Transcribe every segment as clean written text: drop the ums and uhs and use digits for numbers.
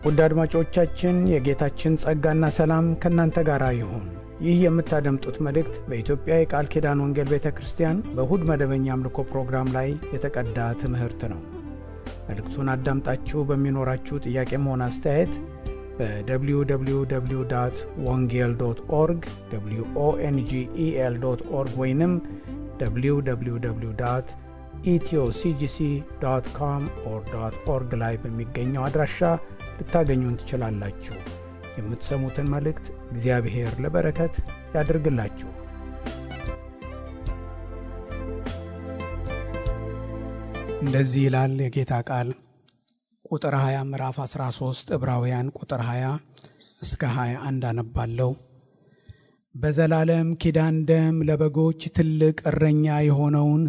ውድ አድማጮቻችን የጌታችን ጸጋና ሰላም ከእናንተ ጋር ይሁን። ይህ የምታደምጡት መልእክት በኢትዮጵያ የቃል ኪዳን ወንጌል ቤተ ክርስቲያን በእሁድ መደበኛ አምልኮ ፕሮግራም ላይ የተቀዳ ትምህርት ነው። መልእክቱን አዳምጣችሁ በሚኖራችሁ ጥያቄም ሆነ አስተያየት በwww.wongel.org wongel.org ወይንም www.ethioCGC.com/org ላይ በሚገኘው አድራሻ ልታገኙን ትችላላችሁ። የምትሰሙትን መልእክት እግዚአብሔር ለበረከት ያድርግላችሁ። እንደዚህ ይላል የጌታ ቃል። ቁጥር 20 ምዕራፍ 13 ዕብራውያን ቁጥር 20 እስከ 21 አነባለሁ። በዘላለም ኪዳን ደም ለበጎች ትልቅ እረኛ የሆነውን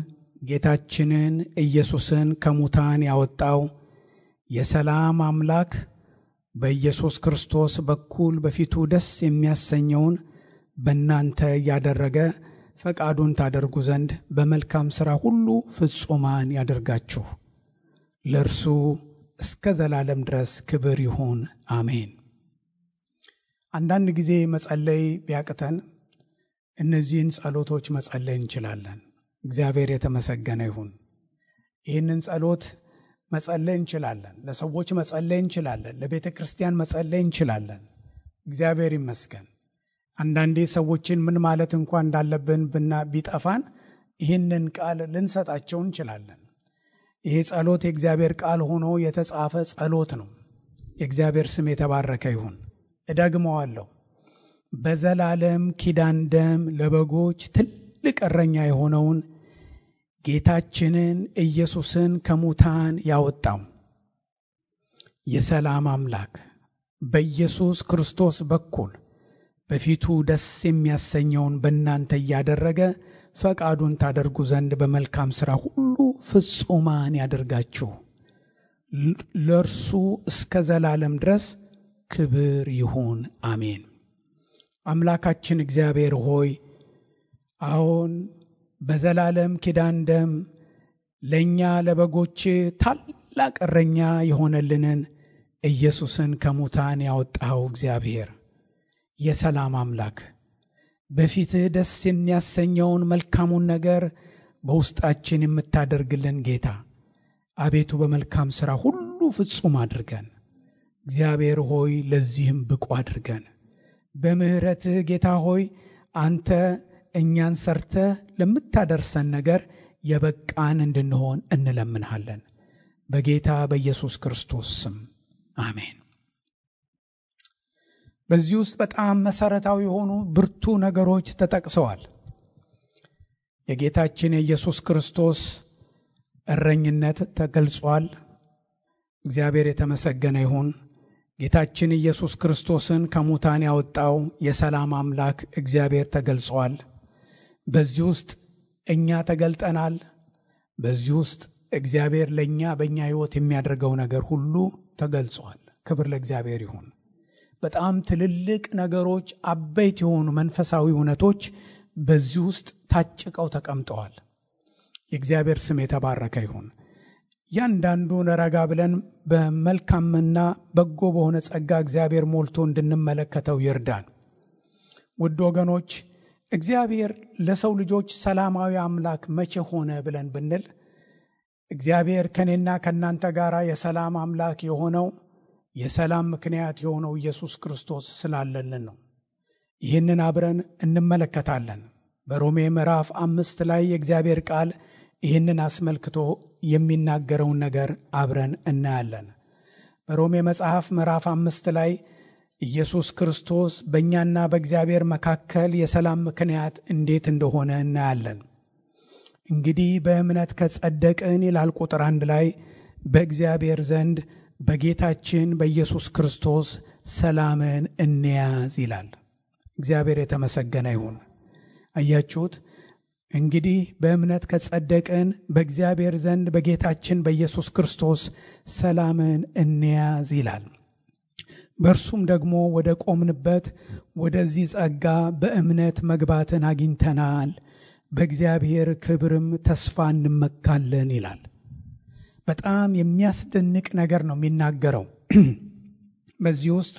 ጌታችንን ኢየሱስን ከሙታን ያወጣው የሰላም አምላክ በኢየሱስ ክርስቶስ በኩል በፊቱ ደስ የሚያሰኘውን በእናንተ ያደረገ ፈቃዱን ታደርጉ ዘንድ በመልካም ሥራ ሁሉ ፍጹማን ያደርጋችሁ። ለእርሱ እስከ ዘላለም ድረስ ክብር ይሁን፣ አሜን። አንዳንድ ጊዜ መጸለይ ቢያቅተን እነዚህን ጸሎቶች መጸለይ እንችላለን። እግዚአብሔር የተመሰገነ ይሁን። ይህንን ጸሎት መጸለይ እንችላለን። ለሰዎች መጸለይ እንችላለን። ለቤተ ክርስቲያን መጸለይ እንችላለን። እግዚአብሔር ይመስገን። አንዳንዴ ሰዎችን ምን ማለት እንኳን እንዳለብን ቢጠፋን ይህንን ቃል ልንሰጣቸው እንችላለን። ይሄ ጸሎት የእግዚአብሔር ቃል ሆኖ የተጻፈ ጸሎት ነው። የእግዚአብሔር ስም የተባረከ ይሁን። እደግመዋለሁ። በዘላለም ኪዳን ደም ለበጎች ትልቅ እረኛ የሆነውን ጌታችንን ኢየሱስን ከሙታን ያወጣው የሰላም አምላክ በኢየሱስ ክርስቶስ በኩል በፊቱ ደስ የሚያሰኘውን በእናንተ እያደረገ ፈቃዱን ታደርጉ ዘንድ በመልካም ሥራ ሁሉ ፍጹማን ያደርጋችሁ። ለእርሱ እስከ ዘላለም ድረስ ክብር ይሁን፣ አሜን። አምላካችን እግዚአብሔር ሆይ አሁን በዘላለም ኪዳን ደም ለእኛ ለበጎች ታላቅ እረኛ የሆነልንን ኢየሱስን ከሙታን ያወጣኸው እግዚአብሔር የሰላም አምላክ በፊትህ ደስ የሚያሰኘውን መልካሙን ነገር በውስጣችን የምታደርግልን ጌታ አቤቱ በመልካም ሥራ ሁሉ ፍጹም አድርገን። እግዚአብሔር ሆይ ለዚህም ብቁ አድርገን። በምሕረትህ ጌታ ሆይ አንተ እኛን ሰርተህ ለምታደርሰን ነገር የበቃን እንድንሆን እንለምንሃለን። በጌታ በኢየሱስ ክርስቶስ ስም አሜን። በዚህ ውስጥ በጣም መሰረታዊ የሆኑ ብርቱ ነገሮች ተጠቅሰዋል። የጌታችን የኢየሱስ ክርስቶስ እረኝነት ተገልጿል። እግዚአብሔር የተመሰገነ ይሁን። ጌታችን ኢየሱስ ክርስቶስን ከሙታን ያወጣው የሰላም አምላክ እግዚአብሔር ተገልጿል። በዚህ ውስጥ እኛ ተገልጠናል። በዚህ ውስጥ እግዚአብሔር ለእኛ በእኛ ሕይወት የሚያደርገው ነገር ሁሉ ተገልጿል። ክብር ለእግዚአብሔር ይሁን። በጣም ትልልቅ ነገሮች፣ አበይት የሆኑ መንፈሳዊ እውነቶች በዚህ ውስጥ ታጭቀው ተቀምጠዋል። የእግዚአብሔር ስም የተባረከ ይሁን። ያንዳንዱን ረጋ ብለን በመልካምና በጎ በሆነ ጸጋ እግዚአብሔር ሞልቶ እንድንመለከተው ይርዳን። ውድ ወገኖች፣ እግዚአብሔር ለሰው ልጆች ሰላማዊ አምላክ መቼ ሆነ ብለን ብንል እግዚአብሔር ከኔና ከናንተ ጋር የሰላም አምላክ የሆነው የሰላም ምክንያት የሆነው ኢየሱስ ክርስቶስ ስላለልን ነው። ይህንን አብረን እንመለከታለን። በሮሜ ምዕራፍ 5 ላይ የእግዚአብሔር ቃል ይህንን አስመልክቶ የሚናገረውን ነገር አብረን እናያለን። በሮሜ መጽሐፍ ምዕራፍ 5 ላይ ኢየሱስ ክርስቶስ በእኛና በእግዚአብሔር መካከል የሰላም ምክንያት እንዴት እንደሆነ እናያለን። እንግዲህ በእምነት ከጸደቅን ይላል ቁጥር 1 ላይ በእግዚአብሔር ዘንድ በጌታችን በኢየሱስ ክርስቶስ ሰላምን እንያዝ ይላል። እግዚአብሔር የተመሰገነ ይሁን። አያችሁት? እንግዲህ በእምነት ከጸደቅን በእግዚአብሔር ዘንድ በጌታችን በኢየሱስ ክርስቶስ ሰላምን እንያዝ ይላል። በእርሱም ደግሞ ወደ ቆምንበት ወደዚህ ጸጋ በእምነት መግባትን አግኝተናል፣ በእግዚአብሔር ክብርም ተስፋ እንመካለን ይላል። በጣም የሚያስደንቅ ነገር ነው የሚናገረው። በዚህ ውስጥ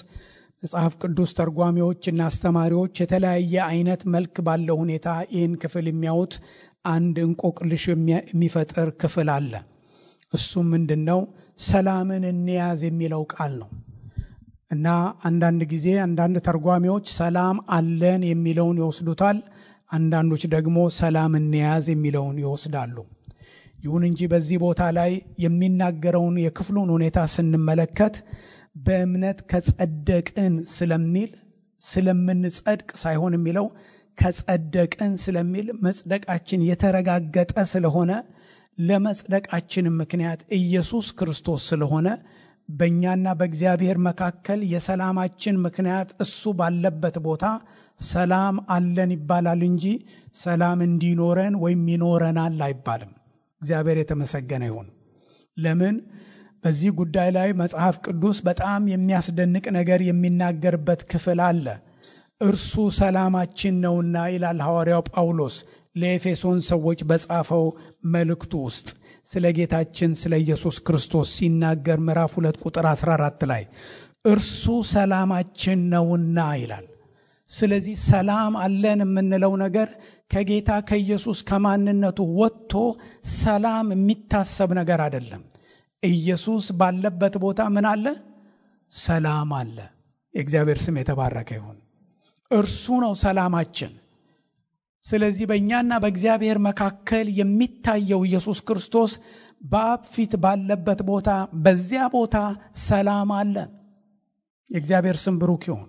መጽሐፍ ቅዱስ ተርጓሚዎችና አስተማሪዎች የተለያየ አይነት መልክ ባለው ሁኔታ ይህን ክፍል የሚያዩት አንድ እንቆቅልሽ የሚፈጥር ክፍል አለ። እሱም ምንድነው? ሰላምን እንያዝ የሚለው ቃል ነው። እና አንዳንድ ጊዜ አንዳንድ ተርጓሚዎች ሰላም አለን የሚለውን ይወስዱታል፣ አንዳንዶች ደግሞ ሰላም እንያዝ የሚለውን ይወስዳሉ። ይሁን እንጂ በዚህ ቦታ ላይ የሚናገረውን የክፍሉን ሁኔታ ስንመለከት በእምነት ከጸደቅን ስለሚል ስለምንጸድቅ ሳይሆን የሚለው ከጸደቅን ስለሚል መጽደቃችን የተረጋገጠ ስለሆነ ለመጽደቃችን ምክንያት ኢየሱስ ክርስቶስ ስለሆነ በእኛና በእግዚአብሔር መካከል የሰላማችን ምክንያት እሱ ባለበት ቦታ ሰላም አለን ይባላል እንጂ ሰላም እንዲኖረን ወይም ይኖረናል አይባልም። እግዚአብሔር የተመሰገነ ይሁን። ለምን? በዚህ ጉዳይ ላይ መጽሐፍ ቅዱስ በጣም የሚያስደንቅ ነገር የሚናገርበት ክፍል አለ። እርሱ ሰላማችን ነውና ይላል ሐዋርያው ጳውሎስ ለኤፌሶን ሰዎች በጻፈው መልእክቱ ውስጥ ስለ ጌታችን ስለ ኢየሱስ ክርስቶስ ሲናገር ምዕራፍ 2 ቁጥር 14 ላይ እርሱ ሰላማችን ነውና ይላል። ስለዚህ ሰላም አለን የምንለው ነገር ከጌታ ከኢየሱስ ከማንነቱ ወጥቶ ሰላም የሚታሰብ ነገር አይደለም። ኢየሱስ ባለበት ቦታ ምን አለ? ሰላም አለ። የእግዚአብሔር ስም የተባረከ ይሁን። እርሱ ነው ሰላማችን። ስለዚህ በእኛና በእግዚአብሔር መካከል የሚታየው ኢየሱስ ክርስቶስ በአብ ፊት ባለበት ቦታ በዚያ ቦታ ሰላም አለ። የእግዚአብሔር ስም ብሩክ ይሁን።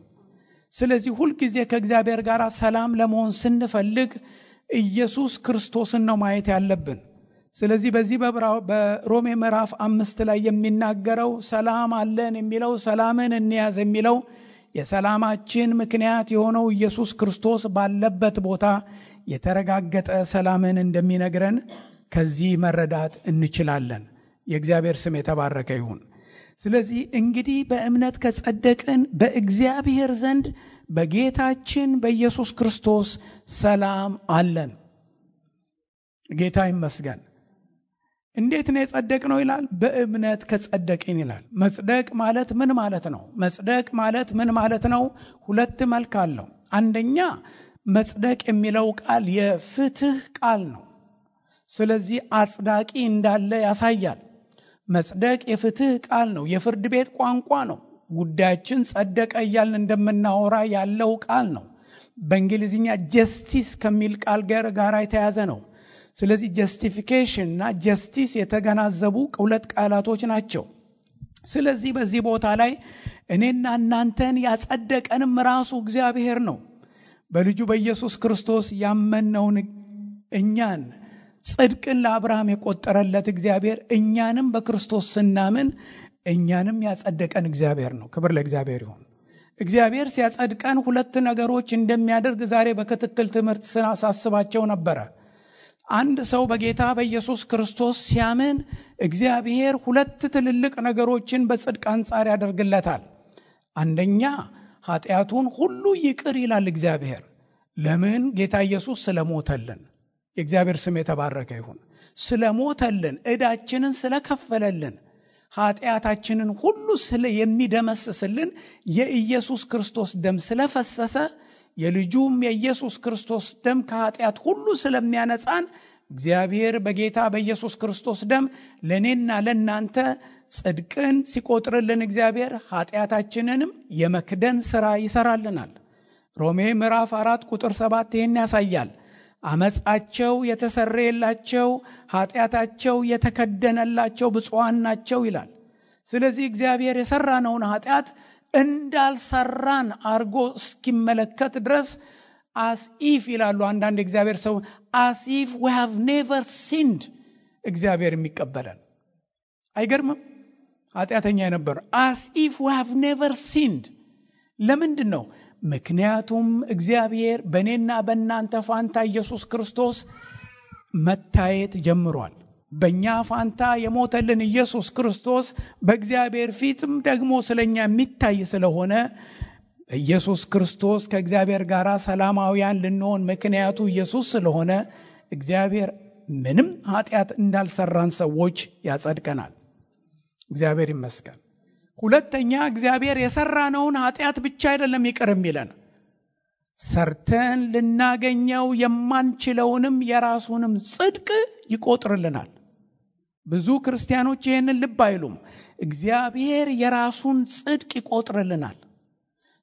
ስለዚህ ሁልጊዜ ከእግዚአብሔር ጋር ሰላም ለመሆን ስንፈልግ ኢየሱስ ክርስቶስን ነው ማየት ያለብን። ስለዚህ በዚህ በሮሜ ምዕራፍ 5 ላይ የሚናገረው ሰላም አለን የሚለው ሰላምን እንያዝ የሚለው የሰላማችን ምክንያት የሆነው ኢየሱስ ክርስቶስ ባለበት ቦታ የተረጋገጠ ሰላምን እንደሚነግረን ከዚህ መረዳት እንችላለን። የእግዚአብሔር ስም የተባረከ ይሁን። ስለዚህ እንግዲህ በእምነት ከጸደቅን በእግዚአብሔር ዘንድ በጌታችን በኢየሱስ ክርስቶስ ሰላም አለን። ጌታ ይመስገን። እንዴት ነው የጸደቅነው ይላል? በእምነት ከጸደቅን ይላል። መጽደቅ ማለት ምን ማለት ነው? መጽደቅ ማለት ምን ማለት ነው? ሁለት መልክ አለው። አንደኛ መጽደቅ የሚለው ቃል የፍትህ ቃል ነው። ስለዚህ አጽዳቂ እንዳለ ያሳያል። መጽደቅ የፍትህ ቃል ነው፣ የፍርድ ቤት ቋንቋ ነው። ጉዳያችን ጸደቀ እያልን እንደምናወራ ያለው ቃል ነው። በእንግሊዝኛ ጀስቲስ ከሚል ቃል ጋር የተያዘ ነው። ስለዚህ ጀስቲፊኬሽን እና ጀስቲስ የተገናዘቡ ሁለት ቃላቶች ናቸው። ስለዚህ በዚህ ቦታ ላይ እኔና እናንተን ያጸደቀንም ራሱ እግዚአብሔር ነው። በልጁ በኢየሱስ ክርስቶስ ያመነውን እኛን ጽድቅን ለአብርሃም የቆጠረለት እግዚአብሔር እኛንም በክርስቶስ ስናምን እኛንም ያጸደቀን እግዚአብሔር ነው። ክብር ለእግዚአብሔር ይሁን። እግዚአብሔር ሲያጸድቀን ሁለት ነገሮች እንደሚያደርግ ዛሬ በክትትል ትምህርት ስናሳስባቸው ነበረ። አንድ ሰው በጌታ በኢየሱስ ክርስቶስ ሲያምን እግዚአብሔር ሁለት ትልልቅ ነገሮችን በጽድቅ አንጻር ያደርግለታል። አንደኛ ኃጢአቱን ሁሉ ይቅር ይላል እግዚአብሔር። ለምን? ጌታ ኢየሱስ ስለሞተልን። የእግዚአብሔር ስም የተባረከ ይሁን። ስለሞተልን፣ ዕዳችንን ስለከፈለልን፣ ኃጢአታችንን ሁሉ የሚደመስስልን የኢየሱስ ክርስቶስ ደም ስለፈሰሰ የልጁም የኢየሱስ ክርስቶስ ደም ከኃጢአት ሁሉ ስለሚያነጻን እግዚአብሔር በጌታ በኢየሱስ ክርስቶስ ደም ለኔና ለናንተ ጽድቅን ሲቆጥርልን እግዚአብሔር ኃጢአታችንንም የመክደን ሥራ ይሰራልናል። ሮሜ ምዕራፍ 4 ቁጥር 7 ይህን ያሳያል። አመጻቸው የተሰረየላቸው ኃጢአታቸው የተከደነላቸው ብፁዓን ናቸው ይላል። ስለዚህ እግዚአብሔር የሰራነውን ኃጢአት እንዳልሰራን አርጎ እስኪመለከት ድረስ as if ይላሉ አንዳንድ እግዚአብሔር ሰው as if we have never sinned እግዚአብሔር የሚቀበለን አይገርምም? ኃጢአተኛ የነበረ as if we have never sinned። ለምንድን ነው? ምክንያቱም እግዚአብሔር በእኔና በእናንተ ፋንታ ኢየሱስ ክርስቶስ መታየት ጀምሯል። በእኛ ፋንታ የሞተልን ኢየሱስ ክርስቶስ በእግዚአብሔር ፊትም ደግሞ ስለኛ የሚታይ ስለሆነ ኢየሱስ ክርስቶስ ከእግዚአብሔር ጋር ሰላማውያን ልንሆን ምክንያቱ ኢየሱስ ስለሆነ እግዚአብሔር ምንም ኃጢአት እንዳልሰራን ሰዎች ያጸድቀናል። እግዚአብሔር ይመስገን። ሁለተኛ እግዚአብሔር የሰራነውን ኃጢአት ብቻ አይደለም ይቅር የሚለን፣ ሰርተን ልናገኘው የማንችለውንም የራሱንም ጽድቅ ይቆጥርልናል። ብዙ ክርስቲያኖች ይህንን ልብ አይሉም። እግዚአብሔር የራሱን ጽድቅ ይቆጥርልናል።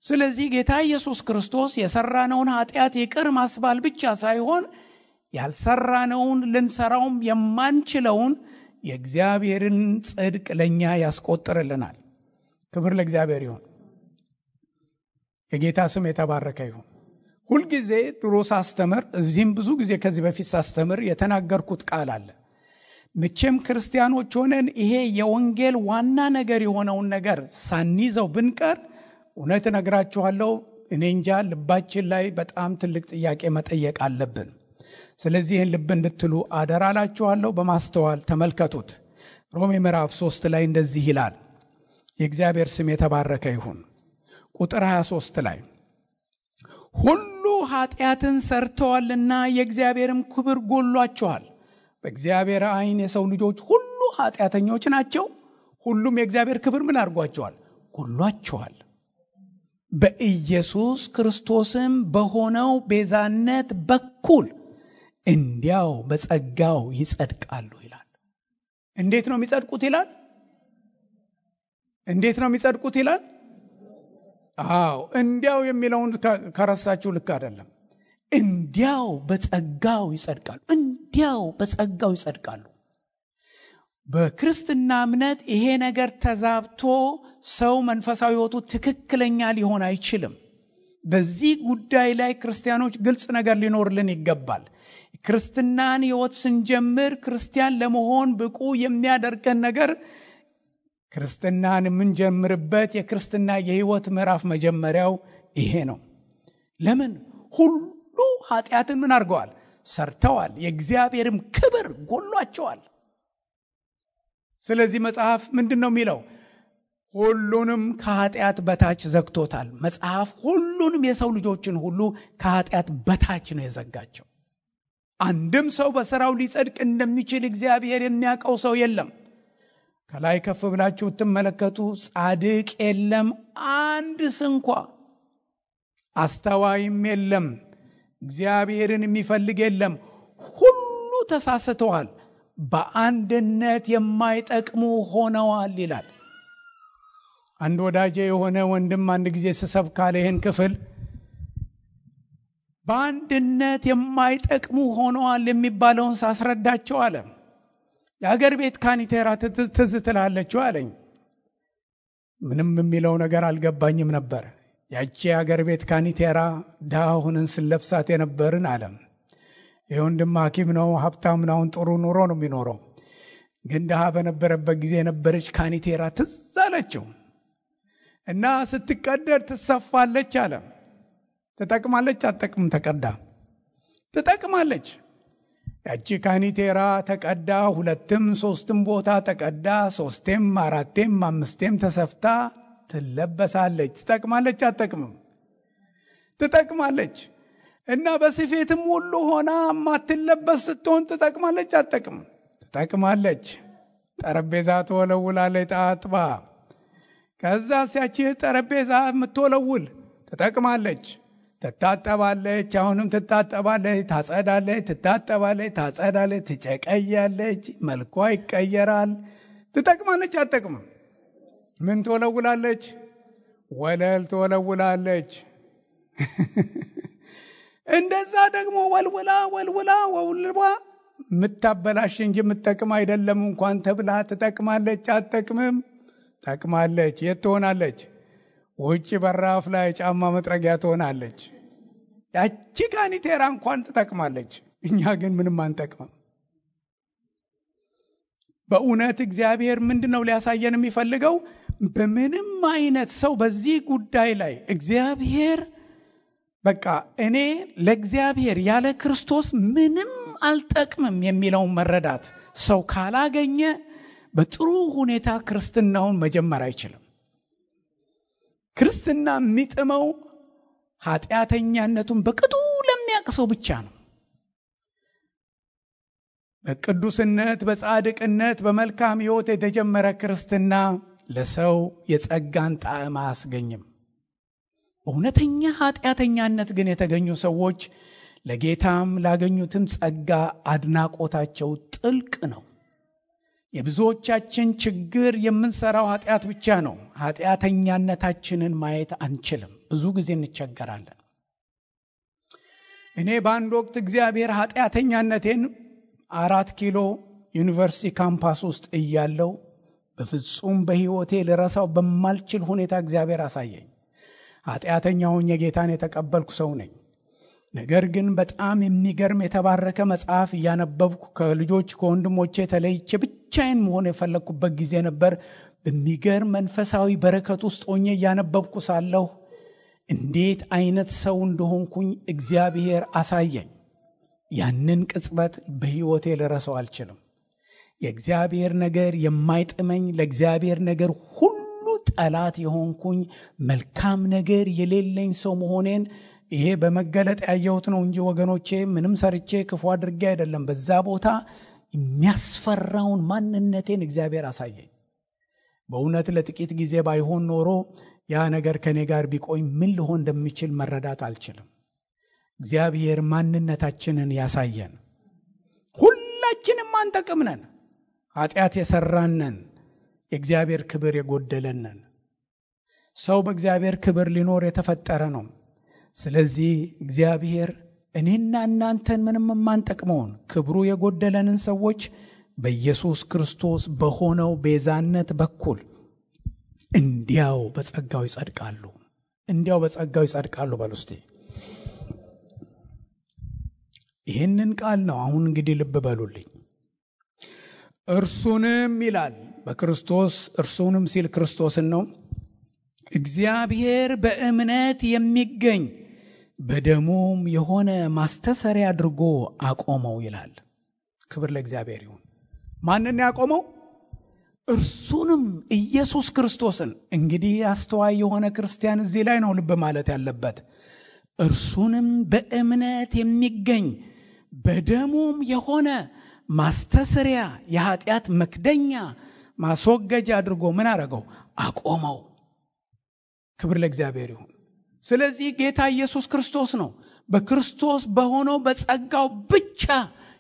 ስለዚህ ጌታ ኢየሱስ ክርስቶስ የሰራነውን ኃጢአት ይቅር ማስባል ብቻ ሳይሆን ያልሰራነውን ልንሰራውም የማንችለውን የእግዚአብሔርን ጽድቅ ለኛ ያስቆጥርልናል። ክብር ለእግዚአብሔር ይሁን። የጌታ ስም የተባረከ ይሁን። ሁልጊዜ ድሮ ሳስተምር፣ እዚህም ብዙ ጊዜ ከዚህ በፊት ሳስተምር የተናገርኩት ቃል አለ። መቼም ክርስቲያኖች ሆነን ይሄ የወንጌል ዋና ነገር የሆነውን ነገር ሳንይዘው ብንቀር እውነት እነግራችኋለሁ፣ እኔ እንጃ ልባችን ላይ በጣም ትልቅ ጥያቄ መጠየቅ አለብን። ስለዚህ ይህን ልብ እንድትሉ አደራላችኋለሁ። በማስተዋል ተመልከቱት። ሮሜ ምዕራፍ 3 ላይ እንደዚህ ይላል። የእግዚአብሔር ስም የተባረከ ይሁን። ቁጥር 23 ላይ ሁሉ ኃጢአትን ሰርተዋልና የእግዚአብሔርም ክብር ጎሏቸዋል። በእግዚአብሔር ዓይን የሰው ልጆች ሁሉ ኃጢአተኞች ናቸው። ሁሉም የእግዚአብሔር ክብር ምን አድርጓቸዋል? ጎሏቸዋል። በኢየሱስ ክርስቶስም በሆነው ቤዛነት በኩል እንዲያው በጸጋው ይጸድቃሉ ይላል። እንዴት ነው የሚጸድቁት ይላል? እንዴት ነው የሚጸድቁት ይላል? እንዲያው የሚለውን ከረሳችሁ ልክ አይደለም። እንዲያው በጸጋው ይጸድቃሉ። እንዲያው በጸጋው ይጸድቃሉ። በክርስትና እምነት ይሄ ነገር ተዛብቶ ሰው መንፈሳዊ ሕይወቱ ትክክለኛ ሊሆን አይችልም። በዚህ ጉዳይ ላይ ክርስቲያኖች ግልጽ ነገር ሊኖርልን ይገባል። ክርስትናን ሕይወት ስንጀምር ክርስቲያን ለመሆን ብቁ የሚያደርገን ነገር ክርስትናን የምንጀምርበት የክርስትና የሕይወት ምዕራፍ መጀመሪያው ይሄ ነው። ለምን? ሁሉ ኃጢአትን ምን አድርገዋል? ሰርተዋል፣ የእግዚአብሔርም ክብር ጎሏቸዋል። ስለዚህ መጽሐፍ ምንድን ነው የሚለው? ሁሉንም ከኃጢአት በታች ዘግቶታል። መጽሐፍ ሁሉንም የሰው ልጆችን ሁሉ ከኃጢአት በታች ነው የዘጋቸው። አንድም ሰው በሥራው ሊጸድቅ እንደሚችል እግዚአብሔር የሚያውቀው ሰው የለም። ከላይ ከፍ ብላችሁ ብትመለከቱ ጻድቅ የለም አንድ ስንኳ፣ አስተዋይም የለም፣ እግዚአብሔርን የሚፈልግ የለም። ሁሉ ተሳስተዋል፣ በአንድነት የማይጠቅሙ ሆነዋል ይላል። አንድ ወዳጄ የሆነ ወንድም አንድ ጊዜ ስሰብክ አለ ይህን ክፍል፣ በአንድነት የማይጠቅሙ ሆነዋል የሚባለውን ሳስረዳቸው አለ የአገር ቤት ካኒቴራ ትዝ ትላለችው አለኝ። ምንም የሚለው ነገር አልገባኝም ነበር። ያቺ የአገር ቤት ካኒቴራ ድሃ ሆነን ስለብሳት የነበርን አለም። ይህ ወንድም ሐኪም ነው፣ ሀብታም ነው፣ ጥሩ ኑሮ ነው የሚኖረው። ግን ድሃ በነበረበት ጊዜ የነበረች ካኒቴራ ትዝ አለችው እና ስትቀደድ ትሰፋለች አለ። ትጠቅማለች አትጠቅምም? ተቀዳ ትጠቅማለች። ያቺ ካኒቴራ ተቀዳ፣ 2ም 3ም ቦታ ተቀዳ፣ 3ም 4ም 5ም ተሰፍታ ትለበሳለች። ትጠቅማለች አትጠቅምም? ትጠቅማለች። እና በስፌትም ሁሉ ሆና ማትለበስ ስትሆን ትጠቅማለች አትጠቅምም? ትጠቅማለች። ጠረጴዛ ትወለውላለች ጣጥባ። ከዛ ያቺ ጠረጴዛ የምትወለውል ትጠቅማለች። ትታጠባለች፣ አሁንም ትታጠባለች፣ ታጸዳለች፣ ትታጠባለች፣ ታጸዳለች፣ ትጨቀያለች፣ መልኳ ይቀየራል። ትጠቅማለች አትጠቅምም? ምን ትወለውላለች? ወለል ትወለውላለች። እንደዛ ደግሞ ወልውላ የምታበላሽ እንጂ የምትጠቅም አይደለም እንኳን ተብላ ትጠቅማለች አትጠቅምም? ጠቅማለች። የት ትሆናለች? ውጭ በራፍ ላይ ጫማ መጥረጊያ ትሆናለች። ያቺ ካኒቴራ እንኳን ትጠቅማለች። እኛ ግን ምንም አንጠቅምም። በእውነት እግዚአብሔር ምንድነው ሊያሳየን የሚፈልገው? በምንም አይነት ሰው በዚህ ጉዳይ ላይ እግዚአብሔር በቃ እኔ ለእግዚአብሔር ያለ ክርስቶስ ምንም አልጠቅምም የሚለውን መረዳት ሰው ካላገኘ በጥሩ ሁኔታ ክርስትናውን መጀመር አይችልም። ክርስትና የሚጥመው ኃጢአተኛነቱን በቅጡ ለሚያውቅ ሰው ብቻ ነው። በቅዱስነት፣ በጻድቅነት፣ በመልካም ሕይወት የተጀመረ ክርስትና ለሰው የጸጋን ጣዕም አያስገኝም። በእውነተኛ ኃጢአተኛነት ግን የተገኙ ሰዎች ለጌታም ላገኙትም ጸጋ አድናቆታቸው ጥልቅ ነው። የብዙዎቻችን ችግር የምንሰራው ኃጢአት ብቻ ነው። ኃጢአተኛነታችንን ማየት አንችልም። ብዙ ጊዜ እንቸገራለን። እኔ በአንድ ወቅት እግዚአብሔር ኃጢአተኛነቴን 4 ኪሎ ዩኒቨርሲቲ ካምፓስ ውስጥ እያለው በፍጹም በሕይወቴ ልረሳው በማልችል ሁኔታ እግዚአብሔር አሳየኝ። ኃጢአተኛ ሆኜ ጌታን የተቀበልኩ ሰው ነኝ። ነገር ግን በጣም የሚገርም የተባረከ መጽሐፍ እያነበብኩ ከልጆች ከወንድሞቼ ተለይቼ ብቻዬን መሆን የፈለግኩበት ጊዜ ነበር። በሚገርም መንፈሳዊ በረከት ውስጥ ሆኜ እያነበብኩ ሳለሁ እንዴት አይነት ሰው እንደሆንኩኝ እግዚአብሔር አሳየኝ። ያንን ቅጽበት በሕይወቴ ልረሳው አልችልም። የእግዚአብሔር ነገር የማይጥመኝ፣ ለእግዚአብሔር ነገር ሁሉ ጠላት የሆንኩኝ፣ መልካም ነገር የሌለኝ ሰው መሆኔን ይሄ በመገለጥ ያየሁት ነው እንጂ ወገኖቼ ምንም ሰርቼ ክፉ አድርጌ አይደለም። በዛ ቦታ የሚያስፈራውን ማንነቴን እግዚአብሔር አሳየኝ። በእውነት ለጥቂት ጊዜ ባይሆን ኖሮ ያ ነገር ከኔ ጋር ቢቆይ ምን ልሆን እንደሚችል መረዳት አልችልም። እግዚአብሔር ማንነታችንን ያሳየን። ሁላችንም አንጠቅም ነን። ኃጢአት የሰራነን፣ የእግዚአብሔር ክብር የጎደለነን። ሰው በእግዚአብሔር ክብር ሊኖር የተፈጠረ ነው። ስለዚህ እግዚአብሔር እኔና እናንተን ምንም የማንጠቅመውን ክብሩ የጎደለንን ሰዎች በኢየሱስ ክርስቶስ በሆነው ቤዛነት በኩል እንዲያው በጸጋው ይጸድቃሉ። እንዲያው በጸጋው ይጸድቃሉ። በሉስቲ ይህንን ቃል ነው። አሁን እንግዲህ ልብ በሉልኝ። እርሱንም ይላል በክርስቶስ፣ እርሱንም ሲል ክርስቶስን ነው። እግዚአብሔር በእምነት የሚገኝ በደሙም የሆነ ማስተሰሪያ አድርጎ አቆመው ይላል። ክብር ለእግዚአብሔር ይሁን። ማንን ያቆመው? እርሱንም ኢየሱስ ክርስቶስን። እንግዲህ አስተዋይ የሆነ ክርስቲያን እዚህ ላይ ነው ልብ ማለት ያለበት። እርሱንም በእምነት የሚገኝ በደሙም የሆነ ማስተሰሪያ፣ የኃጢአት መክደኛ ማስወገጃ አድርጎ ምን አረገው? አቆመው። ክብር ለእግዚአብሔር ይሁን። ስለዚህ ጌታ ኢየሱስ ክርስቶስ ነው። በክርስቶስ በሆነው በጸጋው ብቻ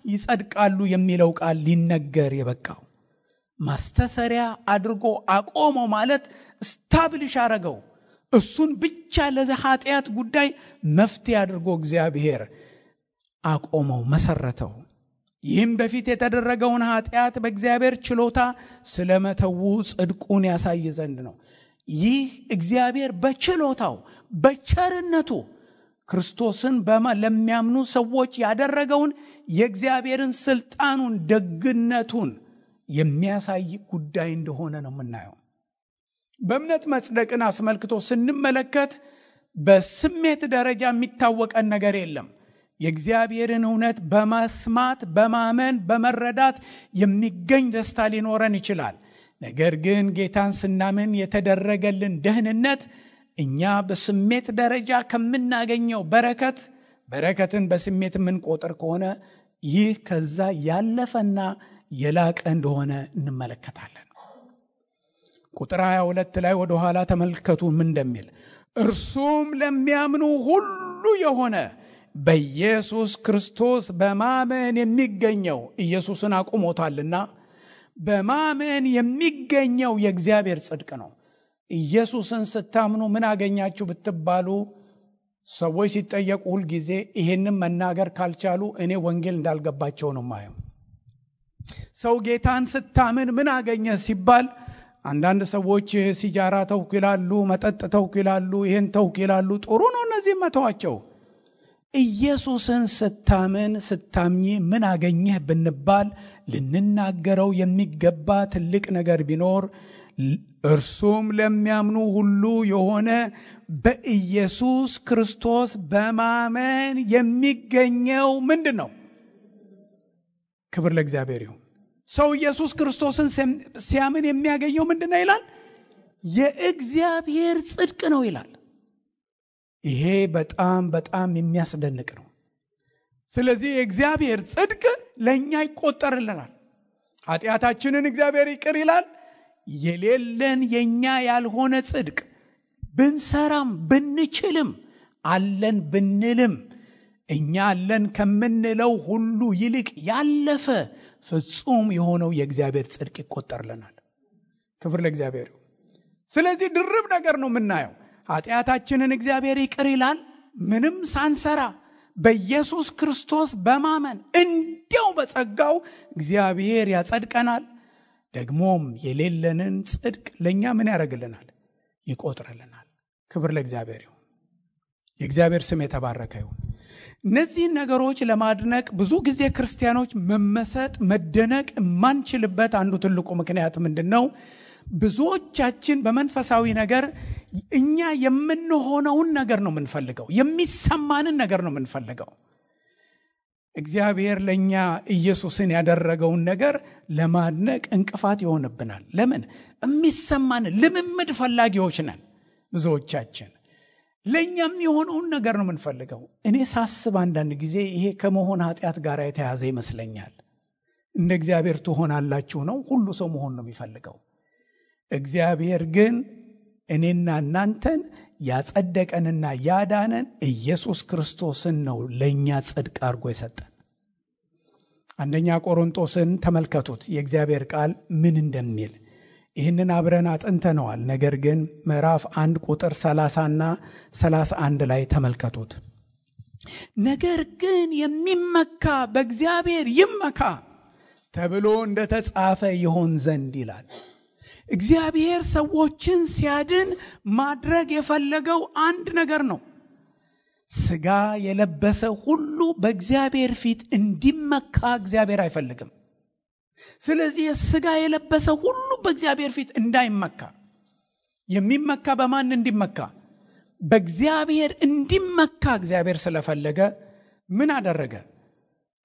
ይጸድቃሉ የሚለው ቃል ሊነገር የበቃው። ማስተሰሪያ አድርጎ አቆመው ማለት ስታብሊሽ አረገው። እሱን ብቻ ለኃጢአት ጉዳይ መፍትሄ አድርጎ እግዚአብሔር አቆመው፣ መሰረተው። ይህም በፊት የተደረገውን ኃጢአት በእግዚአብሔር ችሎታ ስለመተው ጽድቁን ያሳይ ዘንድ ነው። ይህ እግዚአብሔር በችሎታው በቸርነቱ ክርስቶስን ለሚያምኑ ሰዎች ያደረገውን የእግዚአብሔርን ስልጣኑን፣ ደግነቱን የሚያሳይ ጉዳይ እንደሆነ ነው የምናየው። በእምነት መጽደቅን አስመልክቶ ስንመለከት በስሜት ደረጃ የሚታወቀን ነገር የለም። የእግዚአብሔርን እውነት በመስማት በማመን በመረዳት የሚገኝ ደስታ ሊኖረን ይችላል። ነገር ግን ጌታን ስናምን የተደረገልን ደህንነት እኛ በስሜት ደረጃ ከምናገኘው በረከትን በስሜት የምንቆጥር ከሆነ ይህ ከዛ ያለፈና የላቀ እንደሆነ እንመለከታለን። ቁጥር 22 ላይ ወደ ኋላ ተመልከቱ ምን እንደሚል። እርሱም ለሚያምኑ ሁሉ የሆነ በኢየሱስ ክርስቶስ በማመን የሚገኘው፣ ኢየሱስን አቁሞታልና በማመን የሚገኘው የእግዚአብሔር ጽድቅ ነው። ኢየሱስን ስታምኑ ምን አገኛችሁ ብትባሉ ሰዎች ሲጠየቁ ሁልጊዜ ይሄንን መናገር ካልቻሉ እኔ ወንጌል እንዳልገባቸው ነው ማየው። ሰው ጌታን ስታምን ምን አገኘ ሲባል አንዳንድ ሰዎች ሲጃራ ተውኩ ይላሉ፣ መጠጥ ተውኩ ይላሉ፣ ይሄን ተውኩ ይላሉ። ጥሩ ነው፣ እነዚህ መተዋቸው። ኢየሱስን ስታምኚ ምን አገኘህ ብንባል ልንናገረው የሚገባ ትልቅ ነገር ቢኖር እርሱም ለሚያምኑ ሁሉ የሆነ በኢየሱስ ክርስቶስ በማመን የሚገኘው ምንድን ነው? ክብር ለእግዚአብሔር ይሁን። ሰው ኢየሱስ ክርስቶስን ሲያምን የሚያገኘው ምንድን ነው ይላል? የእግዚአብሔር ጽድቅ ነው ይላል። ይሄ በጣም በጣም የሚያስደንቅ ነው። ስለዚህ የእግዚአብሔር ጽድቅ ለእኛ ይቆጠርልናል። ኃጢአታችንን እግዚአብሔር ይቅር ይላል። የሌለን የኛ ያልሆነ ጽድቅ ብንሰራም ብንችልም አለን ብንልም እኛ አለን ከምንለው ሁሉ ይልቅ ያለፈ ፍጹም የሆነው የእግዚአብሔር ጽድቅ ይቆጠርልናል። ክብር ለእግዚአብሔር። ስለዚህ ድርብ ነገር ነው የምናየው። ኃጢአታችንን እግዚአብሔር ይቅር ይላል ምንም ሳንሰራ በኢየሱስ ክርስቶስ በማመን እንዲያው በጸጋው እግዚአብሔር ያጸድቀናል። ደግሞም የሌለንን ጽድቅ ለኛ ምን ያደርግልናል? ይቆጥርልናል። ክብር ለእግዚአብሔር ይሁን። የእግዚአብሔር ስም የተባረከ ይሁን። እነዚህን ነገሮች ለማድነቅ ብዙ ጊዜ ክርስቲያኖች መመሰጥ መደነቅ የማንችልበት አንዱ ትልቁ ምክንያት ምንድነው? ብዙዎቻችን በመንፈሳዊ ነገር እኛ የምንሆነውን ነገር ነው የምንፈልገው፣ የሚሰማንን ነገር ነው የምንፈልገው። እግዚአብሔር ለኛ ኢየሱስን ያደረገውን ነገር ለማድነቅ እንቅፋት ይሆንብናል። ለምን? የሚሰማን ልምምድ ፈላጊዎች ነን ብዙዎቻችን። ለኛም የሆነውን ነገር ነው የምንፈልገው። እኔ ሳስብ አንዳንድ ጊዜ ይሄ ከመሆን ኃጢአት ጋር የተያዘ ይመስለኛል። እንደ እግዚአብሔር ትሆናላችሁ ነው፣ ሁሉ ሰው መሆን ነው የሚፈልገው። እግዚአብሔር ግን እኔና እናንተን ያጸደቀንና ያዳነን ኢየሱስ ክርስቶስን ነው ለኛ ጽድቅ አድርጎ የሰጠን። አንደኛ ቆሮንቶስን ተመልከቱት የእግዚአብሔር ቃል ምን እንደሚል። ይህንን አብረን አጥንተነዋል። ነገር ግን ምዕራፍ 1 ቁጥር 30 እና 31 ላይ ተመልከቱት። ነገር ግን የሚመካ በእግዚአብሔር ይመካ ተብሎ እንደተጻፈ ይሆን ዘንድ ይላል። እግዚአብሔር ሰዎችን ሲያድን ማድረግ የፈለገው አንድ ነገር ነው። ሥጋ የለበሰ ሁሉ በእግዚአብሔር ፊት እንዲመካ እግዚአብሔር አይፈልግም። ስለዚህ ሥጋ የለበሰ ሁሉ በእግዚአብሔር ፊት እንዳይመካ፣ የሚመካ በማን እንዲመካ? በእግዚአብሔር እንዲመካ እግዚአብሔር ስለፈለገ ምን አደረገ?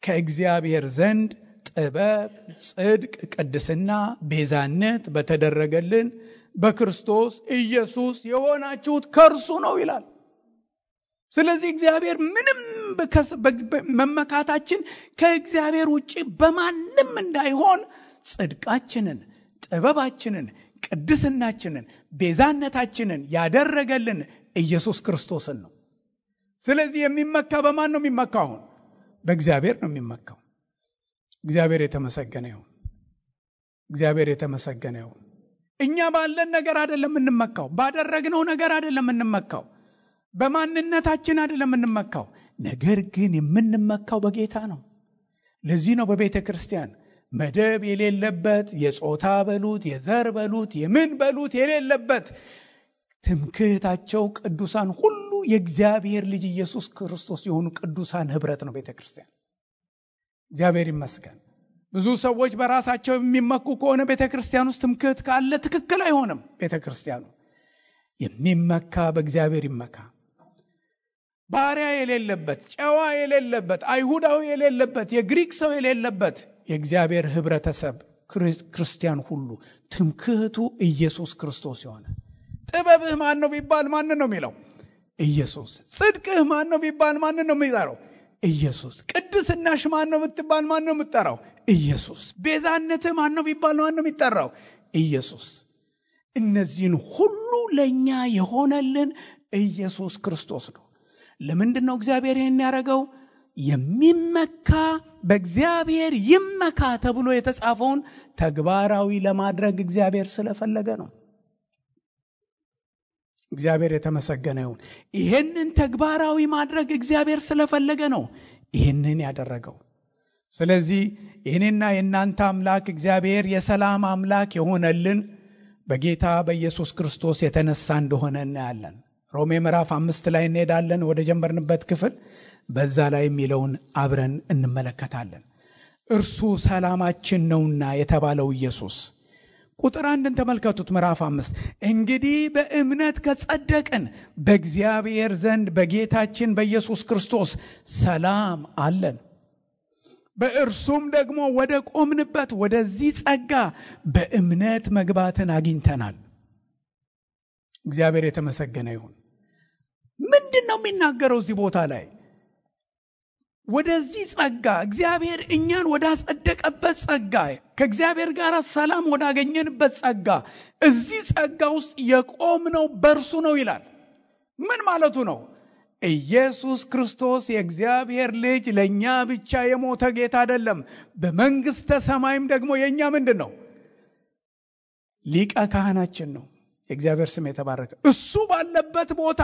ከእግዚአብሔር ዘንድ ጥበብ፣ ጽድቅ፣ ቅድስና፣ ቤዛነት በተደረገልን በክርስቶስ ኢየሱስ የሆናችሁት ከእርሱ ነው ይላል። ስለዚህ እግዚአብሔር ምንም መመካታችን ከእግዚአብሔር ውጪ በማንም እንዳይሆን ጽድቃችንን፣ ጥበባችንን፣ ቅድስናችንን፣ ቤዛነታችንን ያደረገልን ኢየሱስ ክርስቶስን ነው። ስለዚህ የሚመካ በማን ነው የሚመካው? አሁን በእግዚአብሔር ነው የሚመካው። እግዚአብሔር የተመሰገነ ይሁን። እግዚአብሔር የተመሰገነ ይሁን። እኛ ባለን ነገር አይደለም የምንመካው፣ ባደረግነው ነገር አይደለም የምንመካው፣ በማንነታችን አይደለም የምንመካው። ነገር ግን የምንመካው በጌታ ነው። ለዚህ ነው በቤተ ክርስቲያን መደብ የሌለበት፣ የጾታ በሉት የዘር በሉት የምን በሉት የሌለበት ትምክህታቸው ቅዱሳን ሁሉ የእግዚአብሔር ልጅ ኢየሱስ ክርስቶስ የሆኑ ቅዱሳን ህብረት ነው ቤተ ክርስቲያን። እግዚአብሔር ይመስገን። ብዙ ሰዎች በራሳቸው የሚመኩ ከሆነ ቤተ ክርስቲያን ውስጥ ትምክህት ካለ ትክክል አይሆንም። ቤተ ክርስቲያኑ የሚመካ በእግዚአብሔር ይመካ። ባሪያ የሌለበት፣ ጨዋ የሌለበት፣ አይሁዳዊ የሌለበት፣ የግሪክ ሰው የሌለበት የእግዚአብሔር ህብረተሰብ ክርስቲያን ሁሉ ትምክህቱ ኢየሱስ ክርስቶስ የሆነ። ጥበብህ ማን ነው ቢባል ማን ነው የሚለው? ኢየሱስ። ጽድቅህ ማን ነው ቢባል ማን ነው የሚጠራው? ኢየሱስ። ቅድስናሽ ማን ነው ብትባል ማን ነው የምትጠራው? ኢየሱስ። ቤዛነትህ ማን ነው ቢባል ማን ነው የሚጠራው? ኢየሱስ። እነዚህን ሁሉ ለኛ የሆነልን ኢየሱስ ክርስቶስ ነው። ለምንድን ነው እግዚአብሔር ይህን ያደረገው? የሚመካ በእግዚአብሔር ይመካ ተብሎ የተጻፈውን ተግባራዊ ለማድረግ እግዚአብሔር ስለፈለገ ነው። እግዚአብሔር የተመሰገነ ይሁን። ይህንን ተግባራዊ ማድረግ እግዚአብሔር ስለፈለገ ነው ይህንን ያደረገው። ስለዚህ የኔና የእናንተ አምላክ እግዚአብሔር የሰላም አምላክ የሆነልን በጌታ በኢየሱስ ክርስቶስ የተነሳ እንደሆነ እናያለን። ሮሜ ምዕራፍ 5 ላይ እንሄዳለን ወደ ጀመርንበት ክፍል። በዛ ላይ የሚለውን አብረን እንመለከታለን። እርሱ ሰላማችን ነውና የተባለው ኢየሱስ። ቁጥር 1 ተመልከቱት። ምዕራፍ 5 እንግዲህ በእምነት ከጸደቅን በእግዚአብሔር ዘንድ በጌታችን በኢየሱስ ክርስቶስ ሰላም አለን። በእርሱም ደግሞ ወደ ቆምንበት ወደዚህ ጸጋ በእምነት መግባትን አግኝተናል። እግዚአብሔር የተመሰገነ ይሁን። ምንድን ነው የሚናገረው እዚህ ቦታ ላይ? ወደዚህ ጸጋ እግዚአብሔር እኛን ወዳጸደቀበት ጸጋ ከእግዚአብሔር ጋር ሰላም ወዳገኘንበት ጸጋ እዚህ ጸጋ ውስጥ የቆምነው በእርሱ ነው ይላል። ምን ማለቱ ነው? ኢየሱስ ክርስቶስ የእግዚአብሔር ልጅ ለእኛ ብቻ የሞተ ጌታ አይደለም። በመንግሥተ ሰማይም ደግሞ የእኛ ምንድን ነው? ሊቀ ካህናችን ነው። የእግዚአብሔር ስም የተባረከ። እሱ ባለበት ቦታ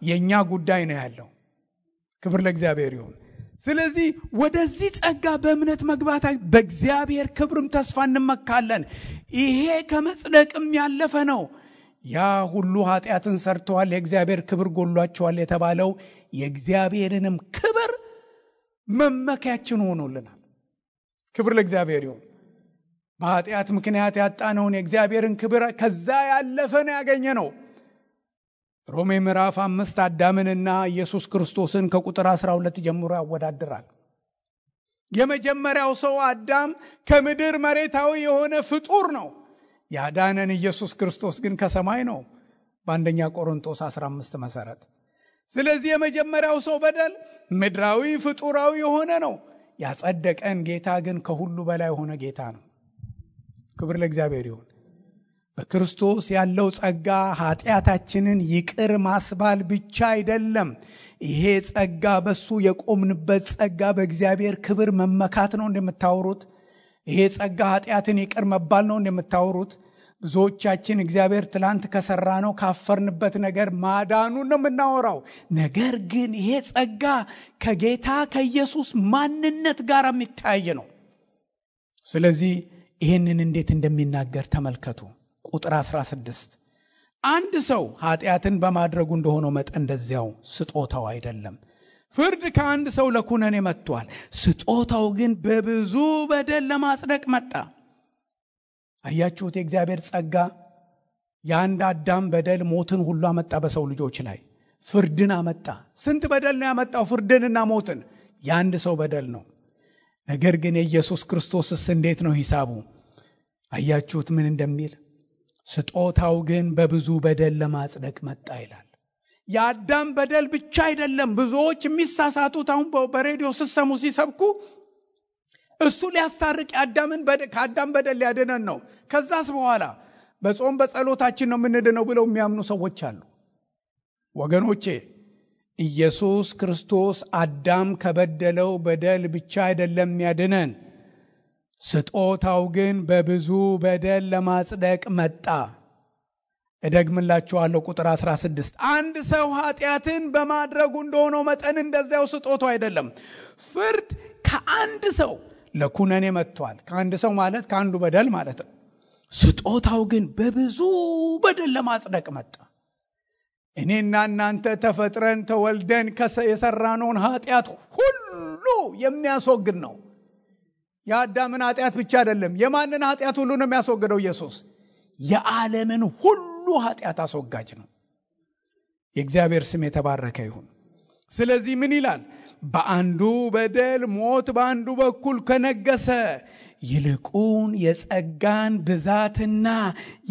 የእኛ ጉዳይ ነው ያለው። ክብር ለእግዚአብሔር ይሁን። ስለዚህ ወደዚህ ጸጋ በእምነት መግባት በእግዚአብሔር ክብርም ተስፋ እንመካለን። ይሄ ከመጽደቅም ያለፈ ነው። ያ ሁሉ ኃጢአትን ሰርተዋል፣ የእግዚአብሔር ክብር ጎሏቸዋል የተባለው የእግዚአብሔርንም ክብር መመኪያችን ሆኖልናል። ክብር ለእግዚአብሔር ይሁን። በኃጢአት ምክንያት ያጣነውን የእግዚአብሔርን ክብር ከዛ ያለፈ ነው ያገኘ ነው። ሮሜ ምዕራፍ 5 አዳምንና ኢየሱስ ክርስቶስን ከቁጥር 12 ጀምሮ ያወዳድራል። የመጀመሪያው ሰው አዳም ከምድር መሬታዊ የሆነ ፍጡር ነው። ያዳነን ኢየሱስ ክርስቶስ ግን ከሰማይ ነው በአንደኛ ቆሮንቶስ 15 መሰረት። ስለዚህ የመጀመሪያው ሰው በደል ምድራዊ ፍጡራዊ የሆነ ነው። ያጸደቀን ጌታ ግን ከሁሉ በላይ የሆነ ጌታ ነው። ክብር ለእግዚአብሔር ይሁን። በክርስቶስ ያለው ጸጋ ኃጢአታችንን ይቅር ማስባል ብቻ አይደለም። ይሄ ጸጋ በሱ የቆምንበት ጸጋ በእግዚአብሔር ክብር መመካት ነው እንደምታወሩት። ይሄ ጸጋ ኃጢአትን ይቅር መባል ነው እንደምታወሩት። ብዙዎቻችን እግዚአብሔር ትላንት ከሰራ ነው ካፈርንበት ነገር ማዳኑን ነው የምናወራው። ነገር ግን ይሄ ጸጋ ከጌታ ከኢየሱስ ማንነት ጋር የሚታይ ነው። ስለዚህ ይህንን እንዴት እንደሚናገር ተመልከቱ። ቁጥር 16 አንድ ሰው ኃጢአትን በማድረጉ እንደሆነው መጠን እንደዚያው ስጦታው አይደለም። ፍርድ ከአንድ ሰው ለኩነኔ መጥቷል፣ ስጦታው ግን በብዙ በደል ለማጽደቅ መጣ። አያችሁት? የእግዚአብሔር ጸጋ የአንድ አዳም በደል ሞትን ሁሉ አመጣ በሰው ልጆች ላይ፣ ፍርድን አመጣ። ስንት በደል ነው ያመጣው? ፍርድንና ሞትን። የአንድ ሰው በደል ነው። ነገር ግን የኢየሱስ ክርስቶስስ እንዴት ነው ሂሳቡ? አያችሁት ምን እንደሚል? ስጦታው ግን በብዙ በደል ለማጽደቅ መጣ ይላል። የአዳም በደል ብቻ አይደለም። ብዙዎች የሚሳሳቱት አሁን በሬዲዮ ሲሰሙ ሲሰብኩ እሱ ሊያስታርቅ ከአዳም በደል ሊያድነን ነው፣ ከዛስ በኋላ በጾም በጸሎታችን ነው የምንድነው ብለው የሚያምኑ ሰዎች አሉ። ወገኖቼ ኢየሱስ ክርስቶስ አዳም ከበደለው በደል ብቻ አይደለም ያድነን፣ ስጦታው ግን በብዙ በደል ለማጽደቅ መጣ። እደግምላችኋለሁ ቁጥር 16 አንድ ሰው ኃጢአትን በማድረጉ እንደሆነው መጠን እንደዚያው ስጦታው አይደለም። ፍርድ ከአንድ ሰው ለኩነኔ መጥቷል። ከአንድ ሰው ማለት ከአንዱ በደል ማለት ነው። ስጦታው ግን በብዙ በደል ለማጽደቅ መጣ። እኔና እናንተ ተፈጥረን ተወልደን የሰራነውን ኃጢአት ሁሉ የሚያስወግድ ነው። የአዳምን ኃጢአት ብቻ አይደለም። የማንን ኃጢአት ሁሉ ነው የሚያስወግደው? ኢየሱስ የዓለምን ሁሉ ኃጢአት አስወጋጅ ነው። የእግዚአብሔር ስም የተባረከ ይሁን። ስለዚህ ምን ይላል? በአንዱ በደል ሞት በአንዱ በኩል ከነገሰ ይልቁን የጸጋን ብዛትና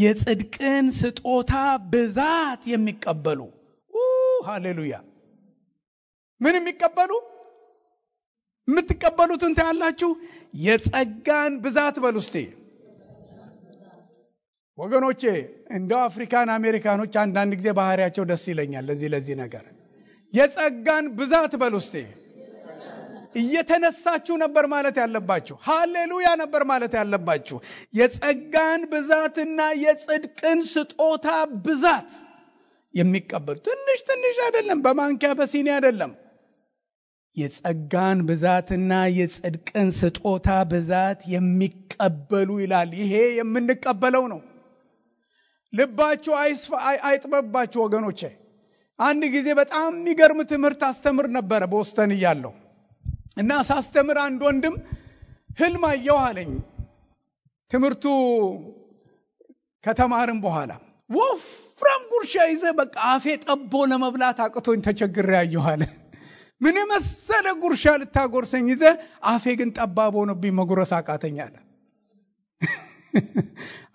የጽድቅን ስጦታ ብዛት የሚቀበሉ ሃሌሉያ። ምን የሚቀበሉ? የምትቀበሉትን ታያላችሁ። የጸጋን ብዛት በሉ እስቲ ወገኖቼ። እንደው አፍሪካን አሜሪካኖች አንዳንድ ጊዜ ባህሪያቸው ደስ ይለኛል ለዚህ ነገር። የጸጋን ብዛት በሉ እስቲ። እየተነሳችሁ ነበር ማለት ያለባችሁ። ሃሌሉያ ነበር ማለት ያለባችሁ። የጸጋን ብዛትና የጽድቅን ስጦታ ብዛት የሚቀበሉ ትንሽ አይደለም፣ በማንኪያ በሲኒ አይደለም። የጸጋን ብዛትና የጽድቅን ስጦታ ብዛት የሚቀበሉ ይላል። ይሄ የምንቀበለው ነው። ልባችሁ አይጥበባችሁ ወገኖቼ። አንድ ጊዜ በጣም የሚገርም ትምህርት አስተምር ነበረ ቦስተን እያለሁ እና ሳስተምር አንድ ወንድም ህልም አየሁ አለኝ። ትምህርቱ ከተማርን በኋላ ወፍራም ጉርሻ ይዘ በቃ አፌ ጠቦ ለመብላት አቅቶኝ ተቸግሬ ያየሁ አለ። ምን መሰለ ጉርሻ ልታጎርሰኝ ይዘ አፌ ግን ጠባብ ሆኖብኝ መጉረስ አቃተኝ አለ።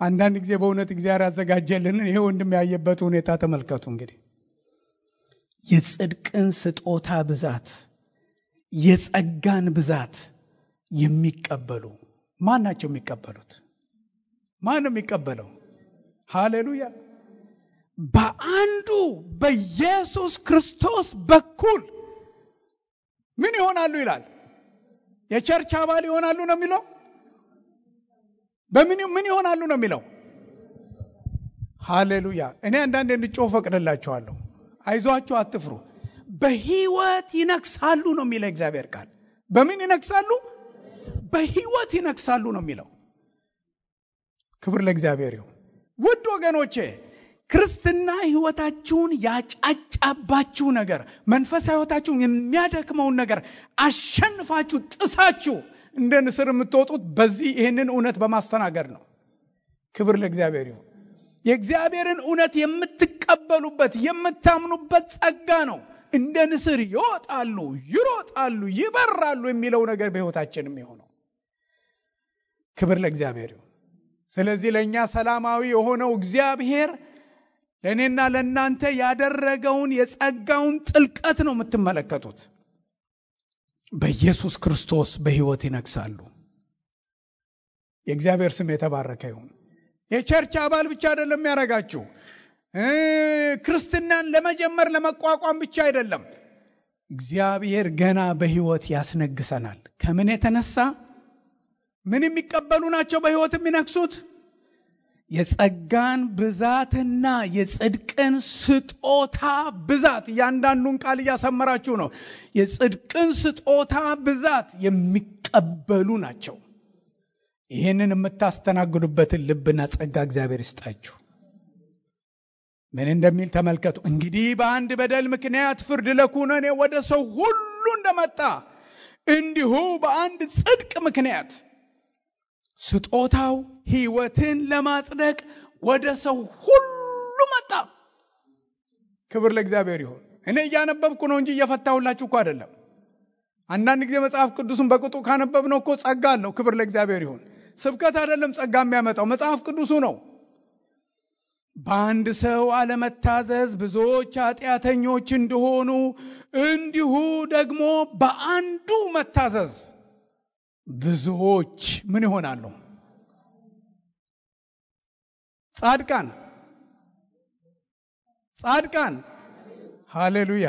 አንዳንድ ጊዜ በእውነት እግዚአብሔር ያዘጋጀልን ይሄ ወንድም ያየበት ሁኔታ ተመልከቱ። እንግዲህ የጽድቅን ስጦታ ብዛት የጸጋን ብዛት የሚቀበሉ ማን ናቸው? የሚቀበሉት ማን ነው የሚቀበለው? ሃሌሉያ! በአንዱ በኢየሱስ ክርስቶስ በኩል ምን ይሆናሉ ይላል? የቸርች አባል ይሆናሉ ነው የሚለው። ምን ይሆናሉ ነው የሚለው? ሃሌሉያ! እኔ አንዳንዴ እንድጮህ ፈቅድላችኋለሁ። አይዟችሁ፣ አትፍሩ። በሕይወት ይነግሳሉ ነው የሚለው እግዚአብሔር ቃል። በምን ይነግሳሉ? በሕይወት ይነግሳሉ ነው የሚለው። ክብር ለእግዚአብሔር ይሁን። ውድ ወገኖቼ፣ ክርስትና ሕይወታችሁን ያጫጫባችሁ ነገር፣ መንፈሳዊ ሕይወታችሁን የሚያደክመውን ነገር አሸንፋችሁ ጥሳችሁ እንደ ንስር የምትወጡት በዚህ ይህንን እውነት በማስተናገድ ነው። ክብር ለእግዚአብሔር ይሁን። የእግዚአብሔርን እውነት የምትቀበሉበት የምታምኑበት ጸጋ ነው። እንደ ንስር ይወጣሉ፣ ይሮጣሉ፣ ይበራሉ የሚለው ነገር በሕይወታችን የሚሆነው። ክብር ለእግዚአብሔር ይሁን። ስለዚህ ለእኛ ሰላማዊ የሆነው እግዚአብሔር ለእኔና ለእናንተ ያደረገውን የጸጋውን ጥልቀት ነው የምትመለከቱት። በኢየሱስ ክርስቶስ በሕይወት ይነግሳሉ። የእግዚአብሔር ስም የተባረከ ይሁን። የቸርች አባል ብቻ አይደለም የሚያደርጋችሁ። ክርስትናን ለመጀመር ለመቋቋም ብቻ አይደለም። እግዚአብሔር ገና በሕይወት ያስነግሰናል። ከምን የተነሳ? ምን የሚቀበሉ ናቸው በሕይወት የሚነግሱት? የጸጋን ብዛትና የጽድቅን ስጦታ ብዛት። እያንዳንዱን ቃል እያሰመራችሁ ነው። የጽድቅን ስጦታ ብዛት የሚቀበሉ ናቸው። ይህንን የምታስተናግዱበትን ልብና ጸጋ እግዚአብሔር ይስጣችሁ። ምን እንደሚል ተመልከቱ። እንግዲህ በአንድ በደል ምክንያት ፍርድ ለኩነኔ ወደ ሰው ሁሉ እንደመጣ እንዲሁ በአንድ ጽድቅ ምክንያት ስጦታው ሕይወትን ለማጽደቅ ወደ ሰው ሁሉ መጣ። ክብር ለእግዚአብሔር ይሁን። እኔ እያነበብኩ ነው እንጂ እየፈታሁላችሁ እኮ አይደለም። አንዳንድ ጊዜ መጽሐፍ ቅዱስን በቅጡ ካነበብነው እኮ ጸጋ አለው። ክብር ለእግዚአብሔር ይሁን። ስብከት አይደለም ጸጋ የሚያመጣው፣ መጽሐፍ ቅዱሱ ነው። በአንድ ሰው አለመታዘዝ ብዙዎች ኃጢአተኞች እንደሆኑ እንዲሁ ደግሞ በአንዱ መታዘዝ ብዙዎች ምን ይሆናሉ? ጻድቃን። ሃሌሉያ!